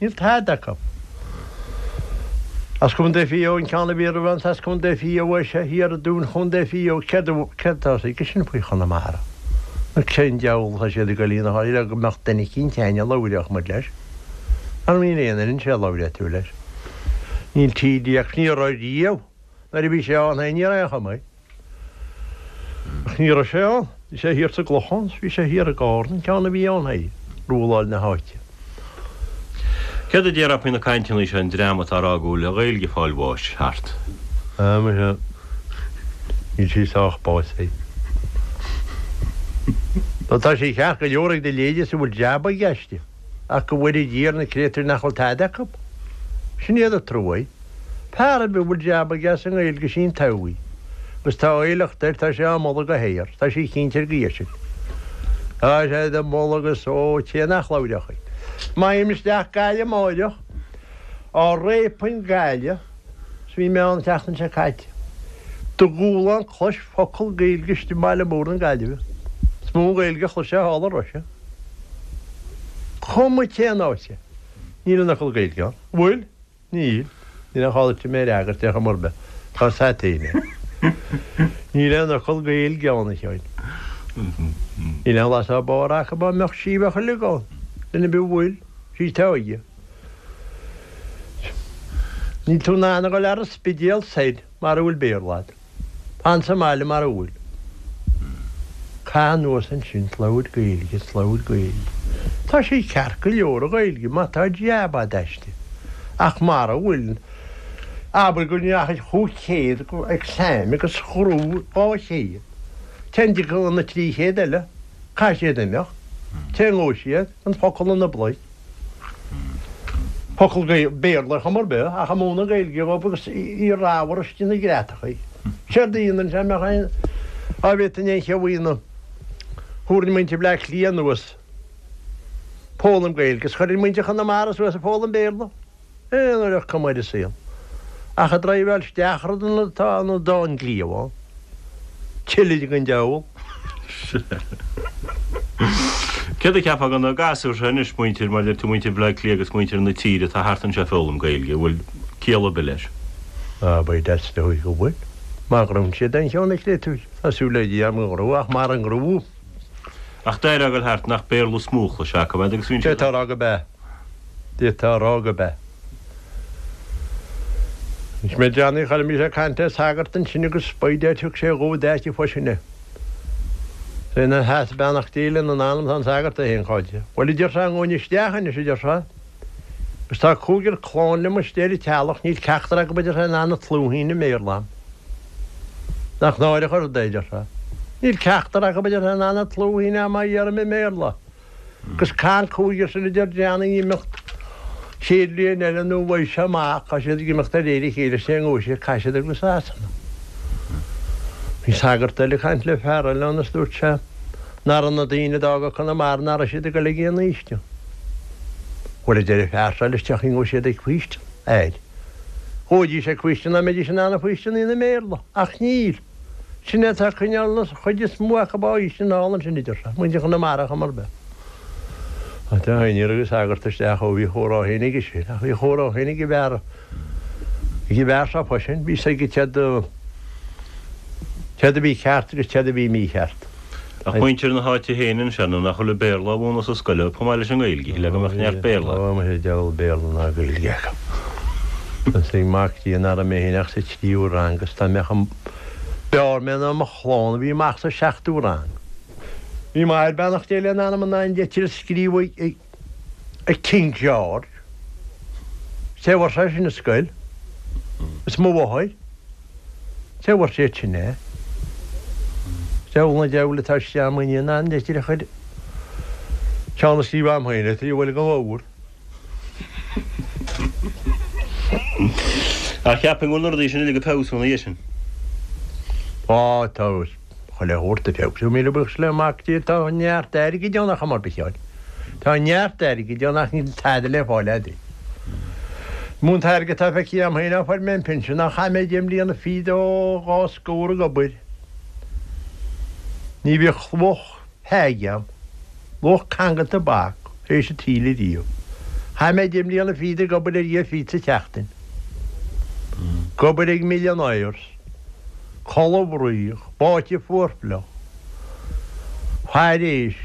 Níl tada acu. As Contae Mhaigh Eo an ceann a bhí roimhe an as Contae Mhaigh Eo é seo thiar i dTún Chontae Mhaigh Eo. Céard céard atá aige sin faoi Chonamara? Nó cén diabhal atá siad ag goil ina le go mbeadh duine eicínt a'inn a labhródh muid leis? Mar níl aon duine anseo a labhróidh tú leis. Níl TD ach ní raibh riamh. Nuair a bhí sé ann féin ní raibh aon chuma air. Ach ní raibh sé ann. Bhí sé thiar sa gClochán 's bhí sé thiar i gCárna, an ceann a bhí ann féin, rúláil na háite. Céard a déarfá faoi na cainteanna seo, an dream atá ag rá go bhfuil an Ghaeilge ag fáil bháis thart? Ah, muise, níl sí sách básaithe. Nó tá sí ceart go leor ag do leithéide is a bhfuil jab aige aisti. Ach go bhfóire Dia ar na créatúir nach bhfuil tada acu. Sin iad an trua. Fear ar bith a bhfuil jab aige as an nGaeilge is í an todhchaí. Agus tá éileacht air, tá sé á moladh go haer, tá sí cinnte ar go sin. Tá sé á moladh agus ó té nach labhródh í. Má théim isteach Gaillimh amáireach, á réapainn Gaillimh, 's bhí mé ann an tseachtain seo caite, do dhúshlán clois focal Gaeilge istigh i mbaile mór na Gaillimhe. Is mó an Ghaeilge a chloisfeá thall i Russia. Cuma cén áit é, níl aon fhocal Gaeilge ann. Bhfuil? Níl. Níl aon chall duit mé a fhreagairt ar chuma ar bith. Tá 's a't fhéin é. Níl aon fhocal Gaeilge ann, a Sheáin. Níl aon bhlas dá barr acu, dá mbeadh sí bheadh uilig ann. Duine ar bith a bhfuil, sí atá aige. Níl tú in ann a dhul ar an Spidéal soir mara bhfuil Béarla agat. Fan sa mbaile mara bhfuil. Caith anuas ansin 's labhair Gaeilge, 's labhair Gaeilge. Tá sí ceart go leor an Ghaeilge má tá jab a'd aisti. Ach mara bhfuil, abair go ndeachaigh 500 go exam agus ghnóthaigh 200. Cén dtiocfadh na 300 eile? Caithfidh siad imeacht. Cé ngabhfaidh siad? An focal ina bpluic. Focal Béarla ar chuma ar bith, ach ag múineadh Gaeilge dhóibh agus í ramhar istigh ina greatachaí. Séard a dhéanann sé, mbeadh aon, á bhféadfainn aon cheo a dhéanamh. Thabharfainn muintir Bhleá Cliath anuas ag foghlaim Gaeilge is chuirfinn muintir Chonamara suas ag foghlaim Béarla. Aon uair ach cuma ar an saol. Ach ag draibheáil isteach rud ina atá an dán cliabhán. Tuilleadh den diabhal. Céard a cheapfá de na gasúir seo anois, muintir, mar a deir tú, muintir Bhaile Átha Cliath agus muintir na tíre atá thart anseo ag foghlaim Gaeilge, an bhfuil ciall ar bith leis? Á, by dad is dóigh go bhfuil. Má ghnóthaíonn siad aon cheann a chréatúir. Tá súil le Dia agam go ngnóthóidh, ach mara ngnóthaí. Ach d'éireodh a ghoil thart nach Béarla is mó a chloisfeá acu agus bhíonn siad. D'fhéadfá a rá go b'ea. D'fhéadfá a rá go b'ea. Anois mé Johnny, chuala mise ag caint le sagart ansin agus by dad thug sé dhó d'áit fo sin é. Is é ina sheasamh beannacht Dé lena anam tá an sagart é féin cáilte. Bhuel a deir sé, an ngabhfainn isteach anois a deir sé. Agus tá cúigear clann liom istigh ar an teallach, níl ceachtar acu a deir sé in ann an tslúithín i mBéarla a'm. Nach náireach an rud é, a deir sé. Níl ceachtar acu a deir sé in ann an tslúithín a'm á iarraidh i mBéarla. Agus caithfidh an cúigear sin a deir Johnny imeacht chéad bhliain eile nó bheidh sé amach, tá siad ag imeacht de réir a chéile, sé an ngabhfaidh siad, caithfidh siad ag go Sasana. Bhí sagart eile ag caint le fear eile ann is dúirt sé nach raibh na daoine a d'fhága Conamara nach raibh siad ag dul ag aon fhaoistean. Bhuel a deir an fear seo leis tiocfaidh an ngabhfaidh siad ag faoistean air. Ghabhaidís ag faoistean dá mbeidís in ann an faoistean a dhéanamh i mBéarla, ach níl. Sin é atá ag coinneáil an chuid is mó acu á bhfaoistean thall ansin a deir sé, muintir Chonamara ar chuma ar bith. Ach tá níor thug an sagart isteach ó bhí a chomhrá féin aige sin, ach bhí a chomhrá féin ag an bhfear, ag an bhfear seo freisin, bhí 's aige céard a, céard a bhí ceart agus céard a bhí mícheart. Ach muintir na háite féin ansin, nó nach bhfuil an Béarla á mhúineadh sa scoil chomh maith leis an nGaeilge, shílfeá go mbeadh neart Béarla. Ó, muise, diabhal Béarla ná Gaeilge acu. Is ag Mac Dé nach raibh mé féin ach sa tríú rang agus dá mbeadh an b'fhearr mé ná mo chlann a bhí amach sa seachtú rang. Bhí m'athair beannacht Dé lena anam in ann litir a scríobh ag King George. Cé a fuair sé sin i scoil? Is mo mháthair. Cé a fuair siad sin é? Deabhal na deabhail atá istigh a'm in ann litir a chur ceann a scríobh a'm féin litir a bhfuil go leor. Ach cheapfainn go bhfuil na rudaí sin uilig ag feabhsú ina dhiaidh sin. Á, tá chuile shórt ag feabhsú, míle buíochas le Mac Dé, tá neart airgid ann ar chuma ar bith, a Sheáin. Tá neart airgid ann ach níl tada le fáil a'd. Mó an t-airgead atá feicthe a'm féin ó fuair mé an pinsean ach chaith mé deich mbliana fichead ó dhá scór ag obair. Ní bhíodh luach peige a'm, luach canga tobac, théis an tsaoil ariamh. Chaith mé deich mbliana fichead ag obair ar dhia fichead sa tseachtain. Ag obair ag millionaires. Codladh fraoch, báite fuarfhliuch. Faire éisc.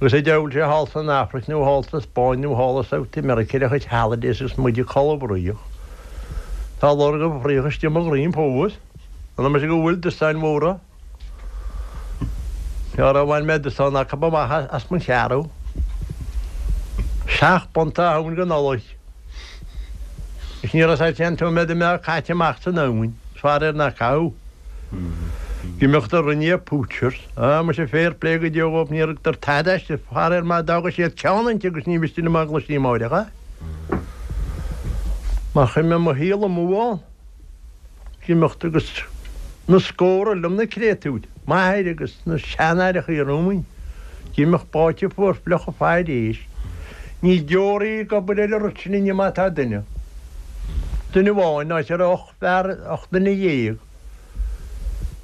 Agus an diabhal sé thall san Afraic nó thall sa Spáinn nó thall i South America ar a chuid holidays agus muid ag codladh fraoch. Tá lorg an fraoch istigh i mo dhroim fós. An mise go bhfuil dostáin mhóra? Nuair a bhain mé dosán acu amach as mo cheathrú. Seacht bpunt a thóin go Nollaig. Is ní raibh sé an t-iomaí a mbeadh caite amach san abhainn, is faraor nach caitheadh. Ag imeacht a rinne poachers. Ah, muise fair play go deo dhóibh, níor thugtar tada aisti, faraor má d'fhága siad ceann inti agus ní mhiste liom á gcloistí amáireach é. Mar chuir mé mo shaol amú ann. Ag imeacht agus. Na scórtha liom na créatúir, m'athair agus na seanaithreachaí romhainn, d'imeacht báite fuar fliuch ag faire éisc. Níl deoraí ag obair ar an rud sin inniu má tá duine. Duine amháin, áit a raibh 18 fear, 18 duine ag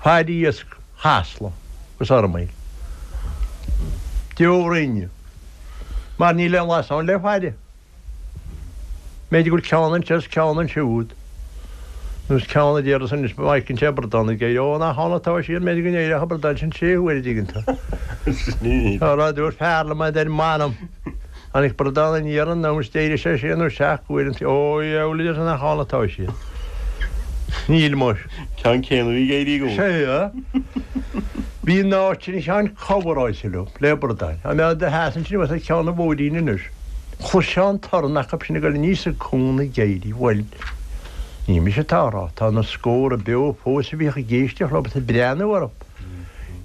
faire iasc Chasla agus Fhormaoil. Deoraí inniu. Mar níl aon lasán le faire. B'fhéidir go bhfuil ceann anseo is ceann ansiúd, nó is ceann a déarfas anois má fheiceann sé bradán ag éirí, ó, nach ann atá siad, b'fhéidir go n-éireodh an bradán sin sé huaire, an dtuigeann tú. Tá rud, dúirt fear liom, a deir, m'anam, tháinig bradán aniar anonn is d'éirigh sé sé nó seacht uair an, ó, dheabhail, a deir sé, nach ann atá siad. Níl muis. Ceann céanna a bhí ag éirí i gcónaí. Sea. Bhí an áit sin a Sheáin coveráilte leo, le bradáin. Dá mbeadh do sheasamh ansin thuas ag ceann an bhóithrín anois, chloisfeá an torann acu sin ag dul aníos an cuan ag éirí. Bhuel, ní mise atá á rá, tá na scórtha beo fós a bhíodh ag éisteacht leo agus ag breathnú orthu.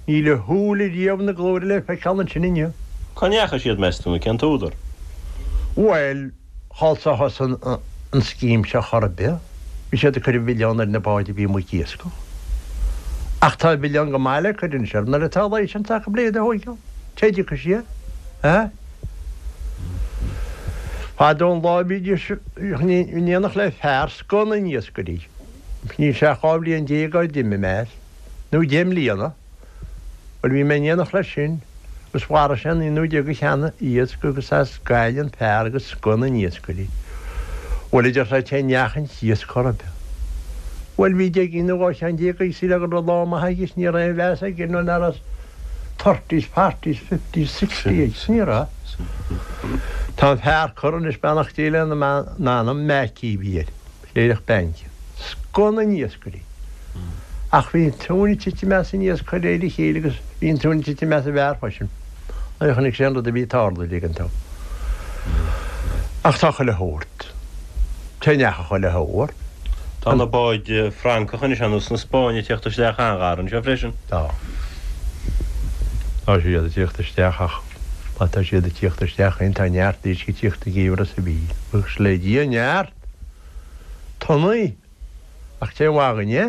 Níl a shúil riamh na glóire le feiceáil ansin inniu. Cá ndeachaigh siad, meas tú, nó cén t-údar? Bhuel, thall sa thosaigh an scéim seo chor ar bith. Bhí siad ag cur an mhilleán ar na báid a bhí amuigh ag iascach. Ach tá an mhilleán go maith le cur anois orthu nuair atá licence acu le iad a thóigeáil. Cé a dtiocfaidh siad? Eh? Fadó an lá bhídís in éineacht le fear scoth na n-iascairí. Níl sé ach 12 bhliain ó d'imigh mé as, nó 10 mbliana. Bhuel, bhí mé in éineacht leis sin agus mharaigh sé an 11ú de sheana iasc agus as Gaillimh an fear agus scoth na n-iascairí. Bhuel, a deir sé, cé ndeachaigh an t-iasc chor ar bith. Bhuel, bhí deich gcinn nó 12 cheann aige sílfeá go raibh lá maith aige is ní raibh aon mheas aige nó nach raibh thirties, forties, fifties, sixties aige. Ní raibh. Tá an fear curtha anois, beannacht Dé lena anam, Mackey a bhí air. Cléireach bainc. Scoth na n-iascairí. Ach bhí an tóin ag titim as an iasc de réir a chéile agus bhí an tóin ag titim as an bhfear freisin nuair a chonaic sé an rud a bhí ag tarlú ag an t-am. Ach tá chuile shórt. Cé ndeachaigh chuile shórt? Tá na báid Francacha anois ar nós na Spáinne ag tíocht isteach an-ghar anseo freisin. Tá. Tá siad ag tíocht isteach ach má tá siad ag tíocht isteach féin tá neart éisc ag tíocht i gceimhreadh sa mhíl. Buíochas le Dia, neart! Tonnaí! Ach cén mhaith dhuinn é?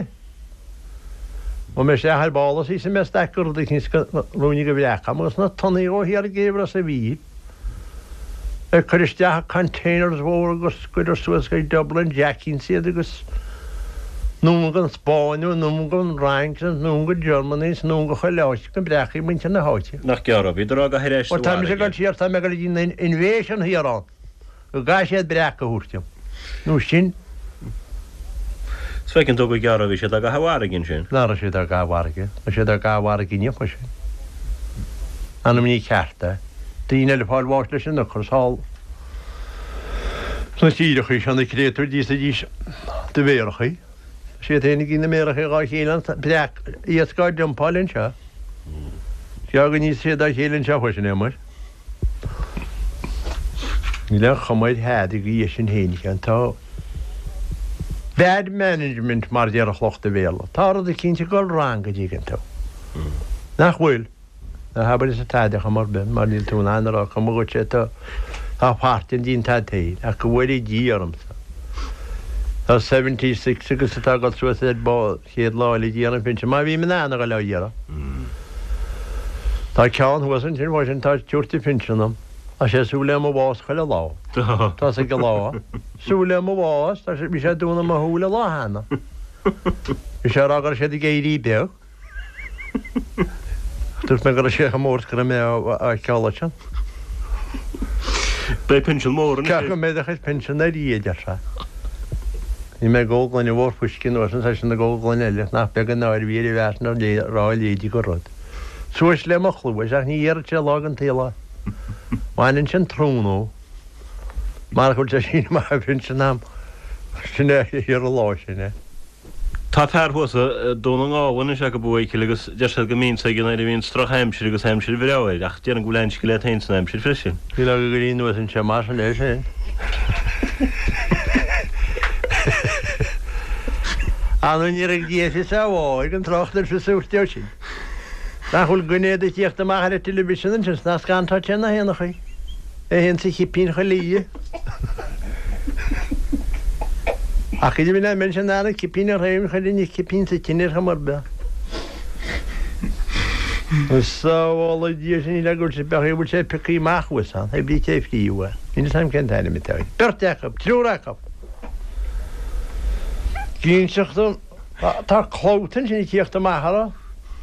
Gabhfaidh mé isteach ar ball is íosfaidh mé staic de rud eicínt go ruainne de bhreac agam agus na tonnaí chomh thiar i gceimhreadh sa mhíl. Ag cur isteach i containers mhóra agus cuireadh suas go Dublin Jackings iad agus anonn go an Spáinn nó anonn go an Fhrainc nó anonn go Germany is anonn go chuile áit go mbreacfaidh muintir na háite. Nach gearr ó bhíodar á gcaitheamh ar ais sa Bhuel tá mise ag bhfarraige. dul siar, tá mé ag dul go dtí an invasion thiar ann. Go gcaithfidh siad breac a thabhairt dom. Nó sin. Is feiceann tú gur gearr ó bhí siad á gcaitheamh i bhfarraige ansin. Nach raibh siad á gcaitheamh i bhfarraige. Tá siad á gcaitheamh i bhfarraige inniu freisin. Anam ní ceart é. Daoine eile ag fáil bháis leis an ocras thall sna tíreachaí seo, na créatúir d'íosfaidís do mhéarachaí. Tá siad féin ag ithe na méarachaí dhá chéile an breac iasc á dumpáil anseo. Is gearr go n-íosfaidh siad dá chéile anseo freisin é muis. Níl aon chuma ar thada go dtí sin féin, a Sheáin. Tá bad management mar a déarfadh lucht an Bhéarla. Tá rud eicínt ag dul wrong an dtuigeann tú. Nach bhfuil? Ná habair arsa tada chuma ar bith mar níl tú in ann a rá cuma dhuit é tá tá páirt an díon tad féin ach go bhfóire Dia ormsa. Tá 76 agus atá ag dul suas ar ball. Chéad lá eile d'iarraidh an phinsean, má bhím in ann a dhul á iarraidh. Tá ceann thuas ansin freisin atá ag tabhairt an phinsean dom. Tá sé ag súil le mo bhás chuile lá. Tá sé ag lá. Súil le mo bhás, tá sé, bhí sé ag dúnadh mo shúile lá cheana. Bhí sé ag rá go raibh siad ag éirí beag. Dúirt mé go raibh sé chomh mór is go raibh mé á fheiceáil ansin. Beidh pinsean mór anois. Ceapaim go mbeidh do chuid pinsean ar Dhia, a deir sé. Bhí mé ag ól gloine mhór fuisce anuas ann, seisean ag ól gloine eile, nach beag an náire a bhí ar an bhfear sin a rá a leithéidí de rud. Suas le mo chluais, ach ní dhéarfadh sé lá den tsaol é. Baineann sin trún ó. Marach go bhfuil sé ag síneadh amach an phinsean a'm, sin é ar an lá sin é. Tá fear thuas i Dún na nGall anois acu a Mhichíl agus deir siad go mbíonns aige nuair a bhíonns droch-aimsir agus aimsir bhreá air ach déarfainn go bhfuil an-scil agat féin san aimsir freisin. Níl ach ag éirí anuas anseo mar sin é sin. Ar ndóigh ní raibh Dia fios a bháidh an trácht ar fios a thabhairt dó sin. Nach bhfuil duine ag tíocht amach ar an television ansin 's nach scantóidh sé na héanachaí. É féin sa chipín chuile oíche. Ach idir mé ná sin an cipín ar thaobh chuirfinn an cipín sa tine ar chuma ar bith. Sábhála Dia sin le go bhfuil sé beag bhfuil sé pioctha amach thuas ann, oibrí cé phríomh é. Níl 'fhios a'm cén t-ainm atá air. Beirt acu, triúr acu. Ginseach dom, tá clabhta ansin ag tíocht amach orthu.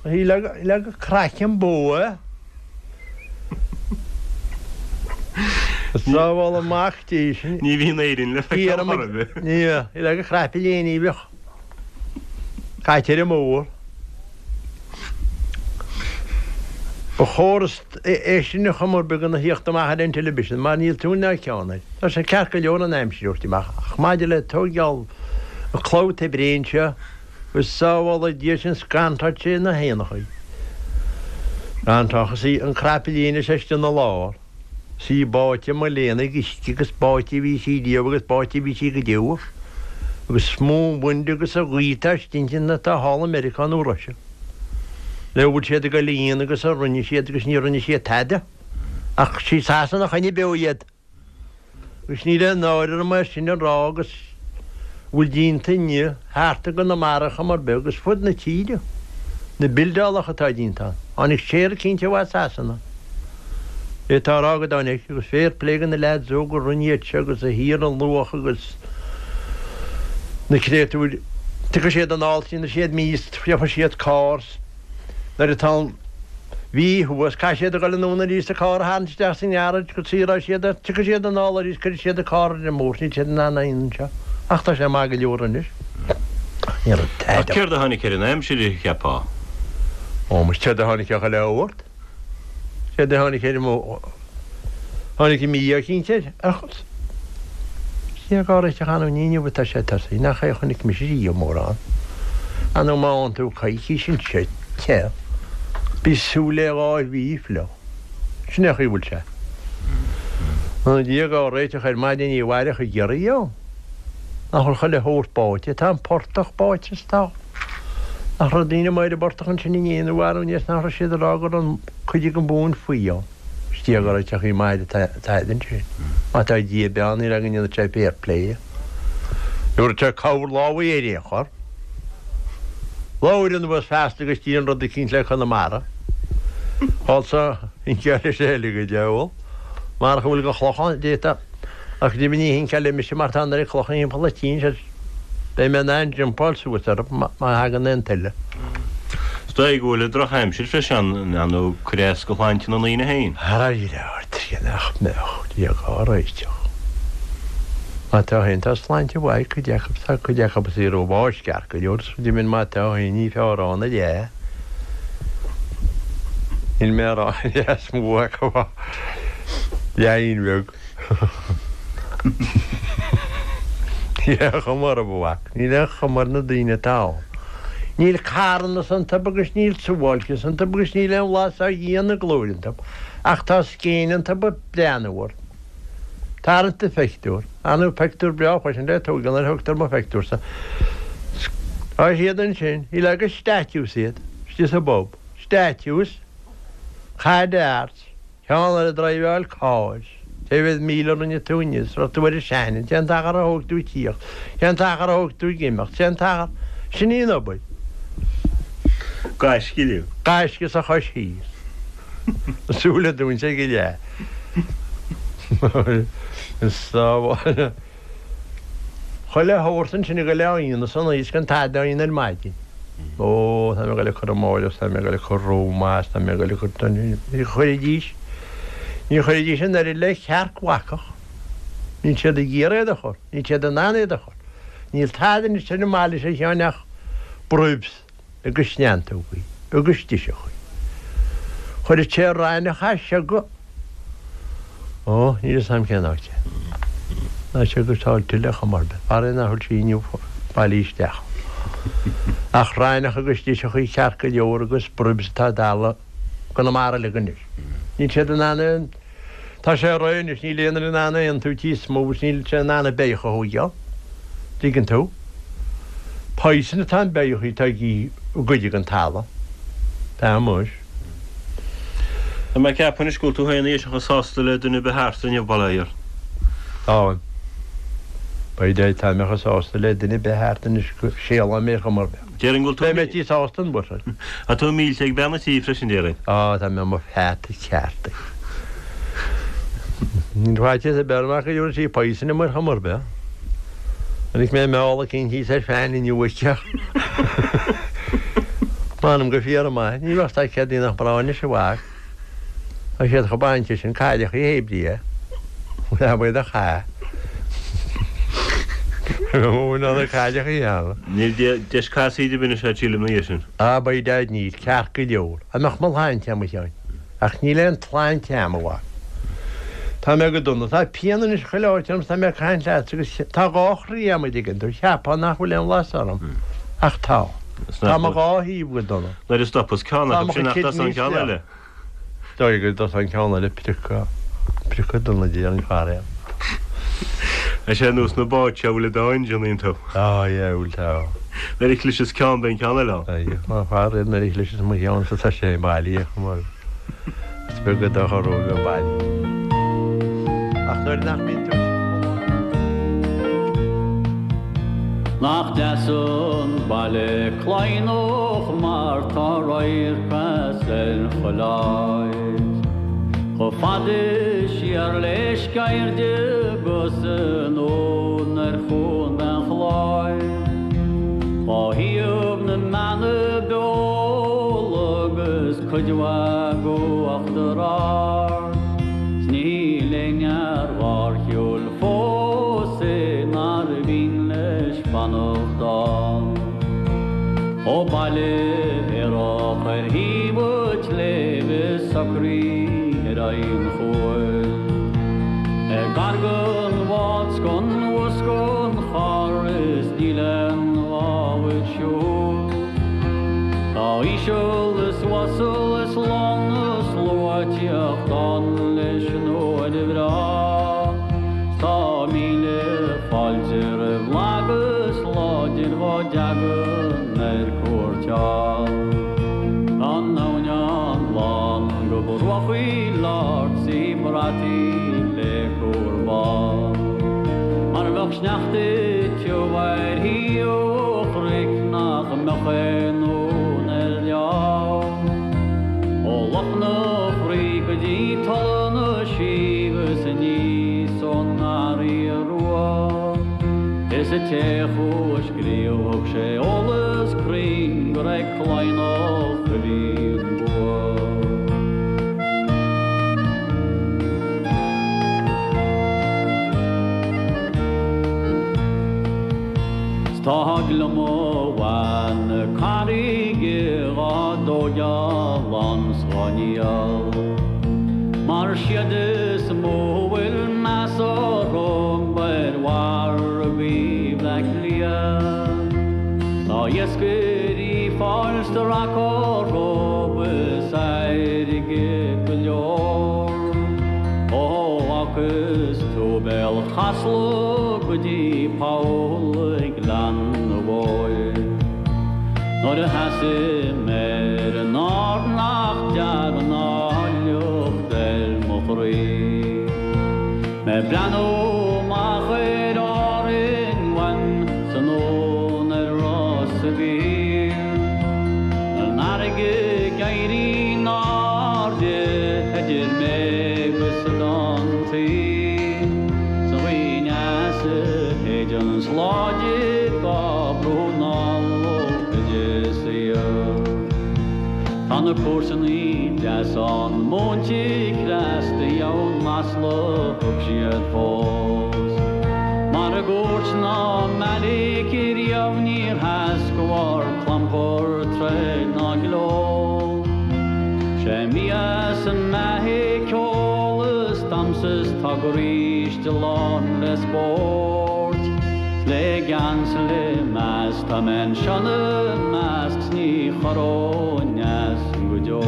Le go craiceann bó é. Sábhála mac Dé sin. Ní bhíonn Éirinn le feiceáil chor ar bith. Ní le go craip léine a bheadh caite ar an mbóthar. Ba chóir é sin a chuma ar bith gona thíocht amach ar an television mar níl tóin ná ceann air. Tá sé ceart go leor an aimsir a thabhairt amach ach maidir le tóigeáil an clabhta bréan seo go sábhála Dia sinn scantóidh sé na héanachaí. Scantóchas í an crapaillín is istigh ina lár. 'S í báite mo léan ag uisce agus báite a bhí sí riamh agus báite a bhí sí go deo. Agus is mó an wind agus an ghaoth atá istigh inti ná atá thall i Meiriceá nó Russia. Le bhfuil siad ag dul a dhéanamh agus a rinne siad agus ní rinne siad tada. Ach sí Sasana a choinnigh beo iad. Agus níl aon náire orm é sin a rá agus a bhfuil déanta inniu thart i gConamara chuma ar bith agus fud na tíre, na bildeálacha atá déanta ann. Tháinig séar eicínt ó Sasana. É atá á rá go dtáinig agus fair play go na leaids óga a rinne iad seo agus a thiar an luach agus na créatúir. Tiocfaidh siad anall trína siad mí is gheobhaidh siad carr. Nuair atá an mhí thuas, caithfidh siad a dhul anonn arís an carr a tharraingt isteach sa ngearáid go saothróidh siad é. Tiocfaidh siad anall arís, cuirfidh siad an carr ar an mbóthar, níl siad in ann aon anseo. Ach tá sé maith go leor anois. Ach ní raibh tada. Ach céard a tháinig ar an aimsir, a cheapfá? Ó, muis, céard a tháinig ar chuile shórt? Céard a tháinig ar an Tháinig an mí-ádh eicínt air. Ach cé dhá réiteach ann ní inniu atá sé tosaithe, nach é a chonaic mise riamh mórán. Ar ndóigh má fhaigheann tú coicís anseo te, bí súil le 2 mhí fliuch. Sin é an chaoi a bhfuil sé. An Dia dhá réiteach ar maidin ní mhairfeadh an giorria ann. Nach bhfuil chuile shórt báite, tá an portach báite is tá. Nach raibh daoine amuigh ar an bportach ansin inné nó arú inné is nach raibh siad ag rá go raibh cuid den mhóin faoi ann. Is Dia dhá réiteach í maith atá ansin. Má tá Dia beo níl againn ionad sé fair play. Nuair atá cabhair lámh ar aon chor. Labhair anuas feasta agus déan rud eicínt le Conamara. Also, hinceáil leis eile go diabhal. Marach a bhfuil de chloch ann, d'fhéadfá. Ach go deimhin ní hinceáil mise mar tá an oiread clocha thimpeall an tí anseo. Beidh mé in ann jumpáil suas orthu má thagann aon tuile. Is dóigh go bhfuil an drochaimsir freisin in ann cur as go shláinte na ndaoine féin. Ara ort, nach mbeadh, Dia dhá réiteach. Má tá féin, tá sláinte mhaith ag cuid acu, tá cuid acu is í rófháisceart go leor, is deimhin má tá féin ní fearr ann a leath. Níl mé a rá an leath is mó acu ach leath bheag. Níl aon chuma orthu, a mhac. Níl aon chuma ar na daoine atá ann. Níl carnas iontu agus níl suáilceas iontu agus níl aon bhlas á Dhia ina nglóir iontu, ach tá scéin iontu ag breathnú ort. Tarraingt do phictiúr. Ar ndóigh, pictiúr breá freisin le tógáil nuair a thugtar mo phictiúrsa. Tá siad ansin, shílfeá gur statues iad, istigh sa bpub. Statues. Caid darts. Ceann eile ag driveáil cairr. Cé mhéad míle a rinne tú inniu? Is raibh tú ar an Shannon. Cén t-achar a thóg tú ag tíocht? Cén t-achar a thóg tú ag imeacht? Cén t-achar? Sin í an obair. Gaisce inniu. Gaisce sa chois thíos. Na súile dúinte ag an leath. Is sábháil. Chuile shórt ansin ag dul á dhéanamh san oíche is gan tada á dhéanamh ar maidin. Ó, tá mé ag dul ag cur amáireach, tá mé ag dul ag cur rómhais, tá mé ag dul ag cur. Ní chuirfidís, ní chuirfidís an oiread le cearc bhacach. Níl siad ag iarraidh iad a chur, níl siad in ann iad a chur. Níl tada anois ar an mbaile seo a Sheáin ach bribs. agus neantógaí agus driseachaí. Chuirfeadh sé raithneach as seo go. Ó, níl fhios a'm cén áit é. Ná seo go Sáil Tuile chuma ar bith. Faraor nach bhfuil sí inniu bailithe isteach. Ach raithneach agus driseachaí ceart go leor agus bribs atá i gConamara uilig anois. Níl siad in ann aon. Tá sé réidh anois, níl aon duine in ann aon tí is mó agus níl sé in ann an beithíoch a thóigeáil. Dtuigeann tú? Poison atá an beithíoch atá ag goid den talamh. Tá muis. Tá mé ag ceapadh anois go bhfuil tú féin a chomh sásta le duine ar bith thart inniu, bail ó Dhia ort. Táim. By Dad tá mé chomh sásta le duine ar bith thart anois go séalóidh mé ar chuma ar bith. Déarfainn go bhfuil tú. Beidh mé tí sásta an bhfuil? Tá tú millte ag bean an tí freisin, déarfainn. Á, tá mé i mo pheata ceart. Níl faitíos ar bith orm ach go dtabharfaidh sí poison dom ar chuma ar bith. Chonaic mé meall eicínt thíos ar fean inniu aici. M'anam go fíor maith, ní bheadh fhios ag céard nach mná anois a mhac. Tá siad chomh bainte sin cailleachaí hé brí. Leath a chaith. Bhfuil na cailleachaí ann. Níl deis casaoid ar bith anois agat sílim ina dhiaidh sin. Á by Dad níl, ceart go leor. Dá mbeadh mo shláinte a'm a Sheáin. Ach níl aon tsláinte a'm a mhac. Tá mé go dona. Tá pian anois chuile áit orm 's tá mé ag caint leatsa agus tá dhá chroí a'm a dtuigeann tú. Cheapfá nach bhfuil aon bhlas orm. Ach tá. Tá mo dhá thaobh go dona. Nuair a stopas ceann Tá acu mo sin chuid nach dtosaíonn an kidneys ceann fliuch. eile. Dóigh go dtosaíonn an ceann eile priocadh, priocadh dona de an faraor. Tá sé ar nós na báid seo a bhfuil an dá engine iontu. Á yeah, bhfuil tá. Nuair a chliseas ceann beidh an ceann eile ann. Aye, má faraor nuair a chliseas mo cheannsa tá sé bailithe chomh maith. Is beag a dochar ó bheith bailithe. Ach nuair nach mbíonn tú. Nach deas an baile Cladhnach mar tá radharc as ar chuile áit. Chomh fada siar le Sceirde 'gus anonn ar Chuan an Chláir. Dhá thaobh na mBeanna Beola agus cuid mhaith d'Uachtar Ard, 's níl aon fhear dhár shiúil fós é nár mhian leis fanacht ann. Ó baile aerach ar thaobh an tsléibhe socraithe ar aghaidh an chuain. Ag gar don bhád 's don bhus 's don charr is níl aon ghá dhuit siúl. Tá íseal is uasal is lán na slua ag tíocht ann leis an uair bhreá. 'S tá míle fáilte roimh lag is láidir dhá dtagann ar cuairt ann. Tá an abhainn an-ghlan go bruachaí ard 's í brataí le cúr bán. Mar bheadh sneachta tiubh ar thaobh an chnoic nach mbeadh aon uan ar leabh. Ó Loch na Fraoigh go dtí Tula na Sí 'gus aníos ón nGarraí Rua. Is an té a chuaigh a scríobh thug sé eolas cruinn gur ag Cladhnach a bhí an bua. 'S tá gliomach mhaith na carraige dhá dtóigeáil ann 's dhá ndíol. Mar siad is mó a bhfuil meas orthu ar mhargaí Bhleá Cliath. Tá iascairí fáil tarrac orthu is airgead go leor. Ó fhágas tú Béal Chasla go dtí poll ag Gleann na bhFeoil. Nuair a sheasaim ar an ard nach dtagann áilleacht ar mo chroí. Mé ag breathnú amach ar Árainn uaim 's anonn ar Ros a' Mhíl. An fharraige ag éirí in airde idir mé agus Oileán Thoí. 'S an ghaoth aneas a shéideann láidir dhá brú anall ó Inis Oírr. Tá na cúrsannaí deasa ann múinte cneasta dheamhan masla thug siad fós. Mar i gcúirt ná meailic riamh níor sheas de bharr clampar troid ná gleo. Sé mias an mbeatha ceol is damhsa is tá garáiste lán le spórt. 'S le gean 's le meas tá mé anseo 'na measc 's ní chorróinn as go deo.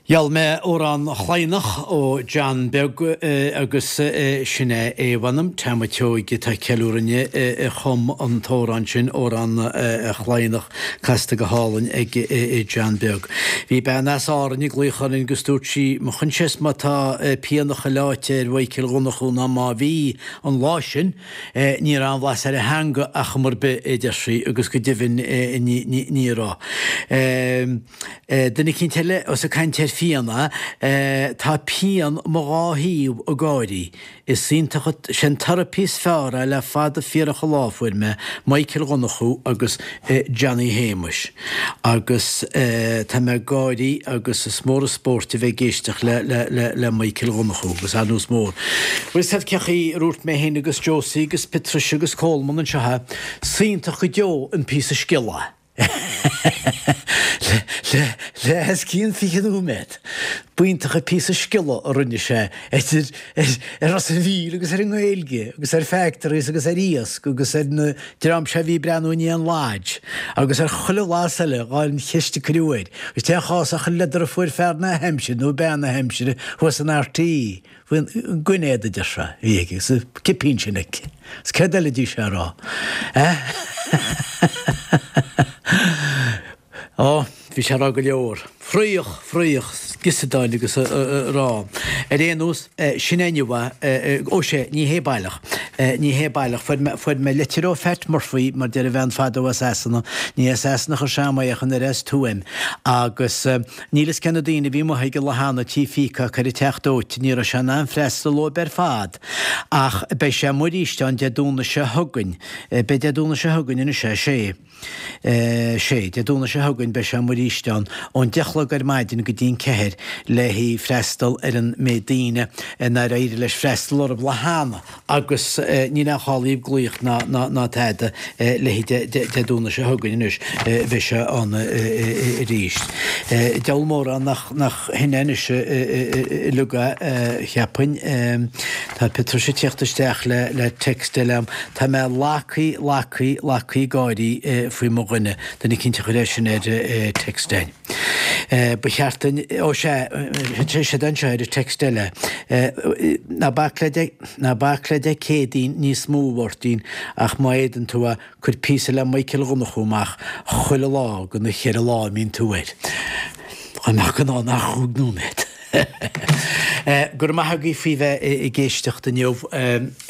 Gheall mé Amhrán Chladhnach ó John Beag agus sin é é mh'anam, Tom a' tSeoighe atá ag ceiliúradh inniu a chum an t-amhrán sin, Amhrán Chladhnach, casta go hálainn ag John Beag. Bhí bean as Árainn ag glaoch orainn agus dúirt sí, mo choinsias má tá pian a chuile áit ar Mhichael Dhonnchú ná má bhí an lá sin, Ní raibh aon bhlas ar a theanga ar chuma ar bith, a deir sí, agus go deimhin ní raibh. Duine eicínt eile, ós ag caint ar phian é, tá pian mo dhá thaobh ag gáirí. Is iontach, sé an therapy is fearr é le fada fíorach an lá a fuair mé, Michael Dhonnchú agus Johnny Shéamais. Agus tá mé ag gáirí agus is mór an spórt a bheith ag éisteacht le Michael Dhonnchú agus ar nós mór. Bhfuil fhios a'd cé chaoi a ndúirt mé féin agus Josie agus Patricia agus Coleman anseo é, 's iontach go deo an píosa scéala. Le os cionn 20 nóiméad. B'iontach an píosa scéala a rinne sé idir ar Ros an Mhíl agus ar an nGaeilge agus ar factories agus ar iasc agus ar na dream seo a bhí ag breathnú i ndiaidh an lodge agus ar chuile bhlas eile dhá cheist a cuireadh air. Agus cén chás ach an leader a fuair fear na haimsire nó bean na haimsire thuas in RTÉ faoin gcoin éadaigh a deir sé a bhí aige agus an cipín sin aici. Agus céard eile a d'fhí sé a rá? Eh? Ó, bhí sé a rá go leor. Fraoch, fraoch, giosadáil agus a rá. Ar aon nós, sin é inniu é. Ó sea, ní hé baileach. Ní hé baileach. Fuair mé, fuair mé litir ó Phat Murphy, mar deir a bhean fadó as Sasana. Ní as Sasana a chuir sé agam é ach an oiread as Tuaim. Agus níl fhios cé na daoine a bhí amuigh ag an lá cheana Tí Peacock ar an Teach Dóite, ní raibh sé in ann freastal dóibh ar fad. Ach beidh sé amuigh arís ann Dé Domhnaigh seo chugainn. Beidh Dé Domhnaigh seo chugainn anois é, sé. Sé, Dé Domhnaigh seo chugainn beidh sé amuigh arís ann ón 10 a chlog ar maidin go dtí an 4 le haghaidh freastal ar an méid daoine nár éirigh leis freastal orthu lá cheana agus níl aon chall daoibh glaoch ná ná tada le haghaidh Dé Domhnaigh seo chugainn anois beidh sé ann arís. Diabhal mórán nach nach shin é anois uilig é cheapfainn. Tá Patricia ag tíocht isteach le le text eile a'm. Tá mé lagthaí, lagthaí, lagthaí gáirí faoi mo dhuine, duine eicínt a chuir é sin ar text a'inn. Ba cheart duinn, ó sea, tá siad anseo ar an text eile. Ná bac le Dé, ná bac le Dé Céadaoin níos mó, a Mháirtín, ach má fhéadann tú é, cuir píosa le Michael Dhonnchú amach chuile lá de na cheithre lá a mbíonn tú air. Dá mbeadh in ann ach chúig nóiméad. Go raibh maith agaibh faoi bheith ag éisteacht inniu.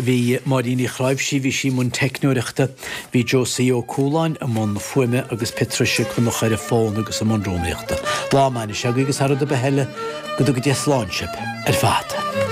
Bhí Máirín Uí Chráimhsí, bhí sí i mbun teicneoireachta, bhí Josie Ó Cualáin i mbun fuaime agus Patricia Conchúir ar an bhfón agus i mbun rúnaíochta. Lá maith anois agaibh agus thar rud ar bith eile, go dtuga Dia slán sibh ar fad.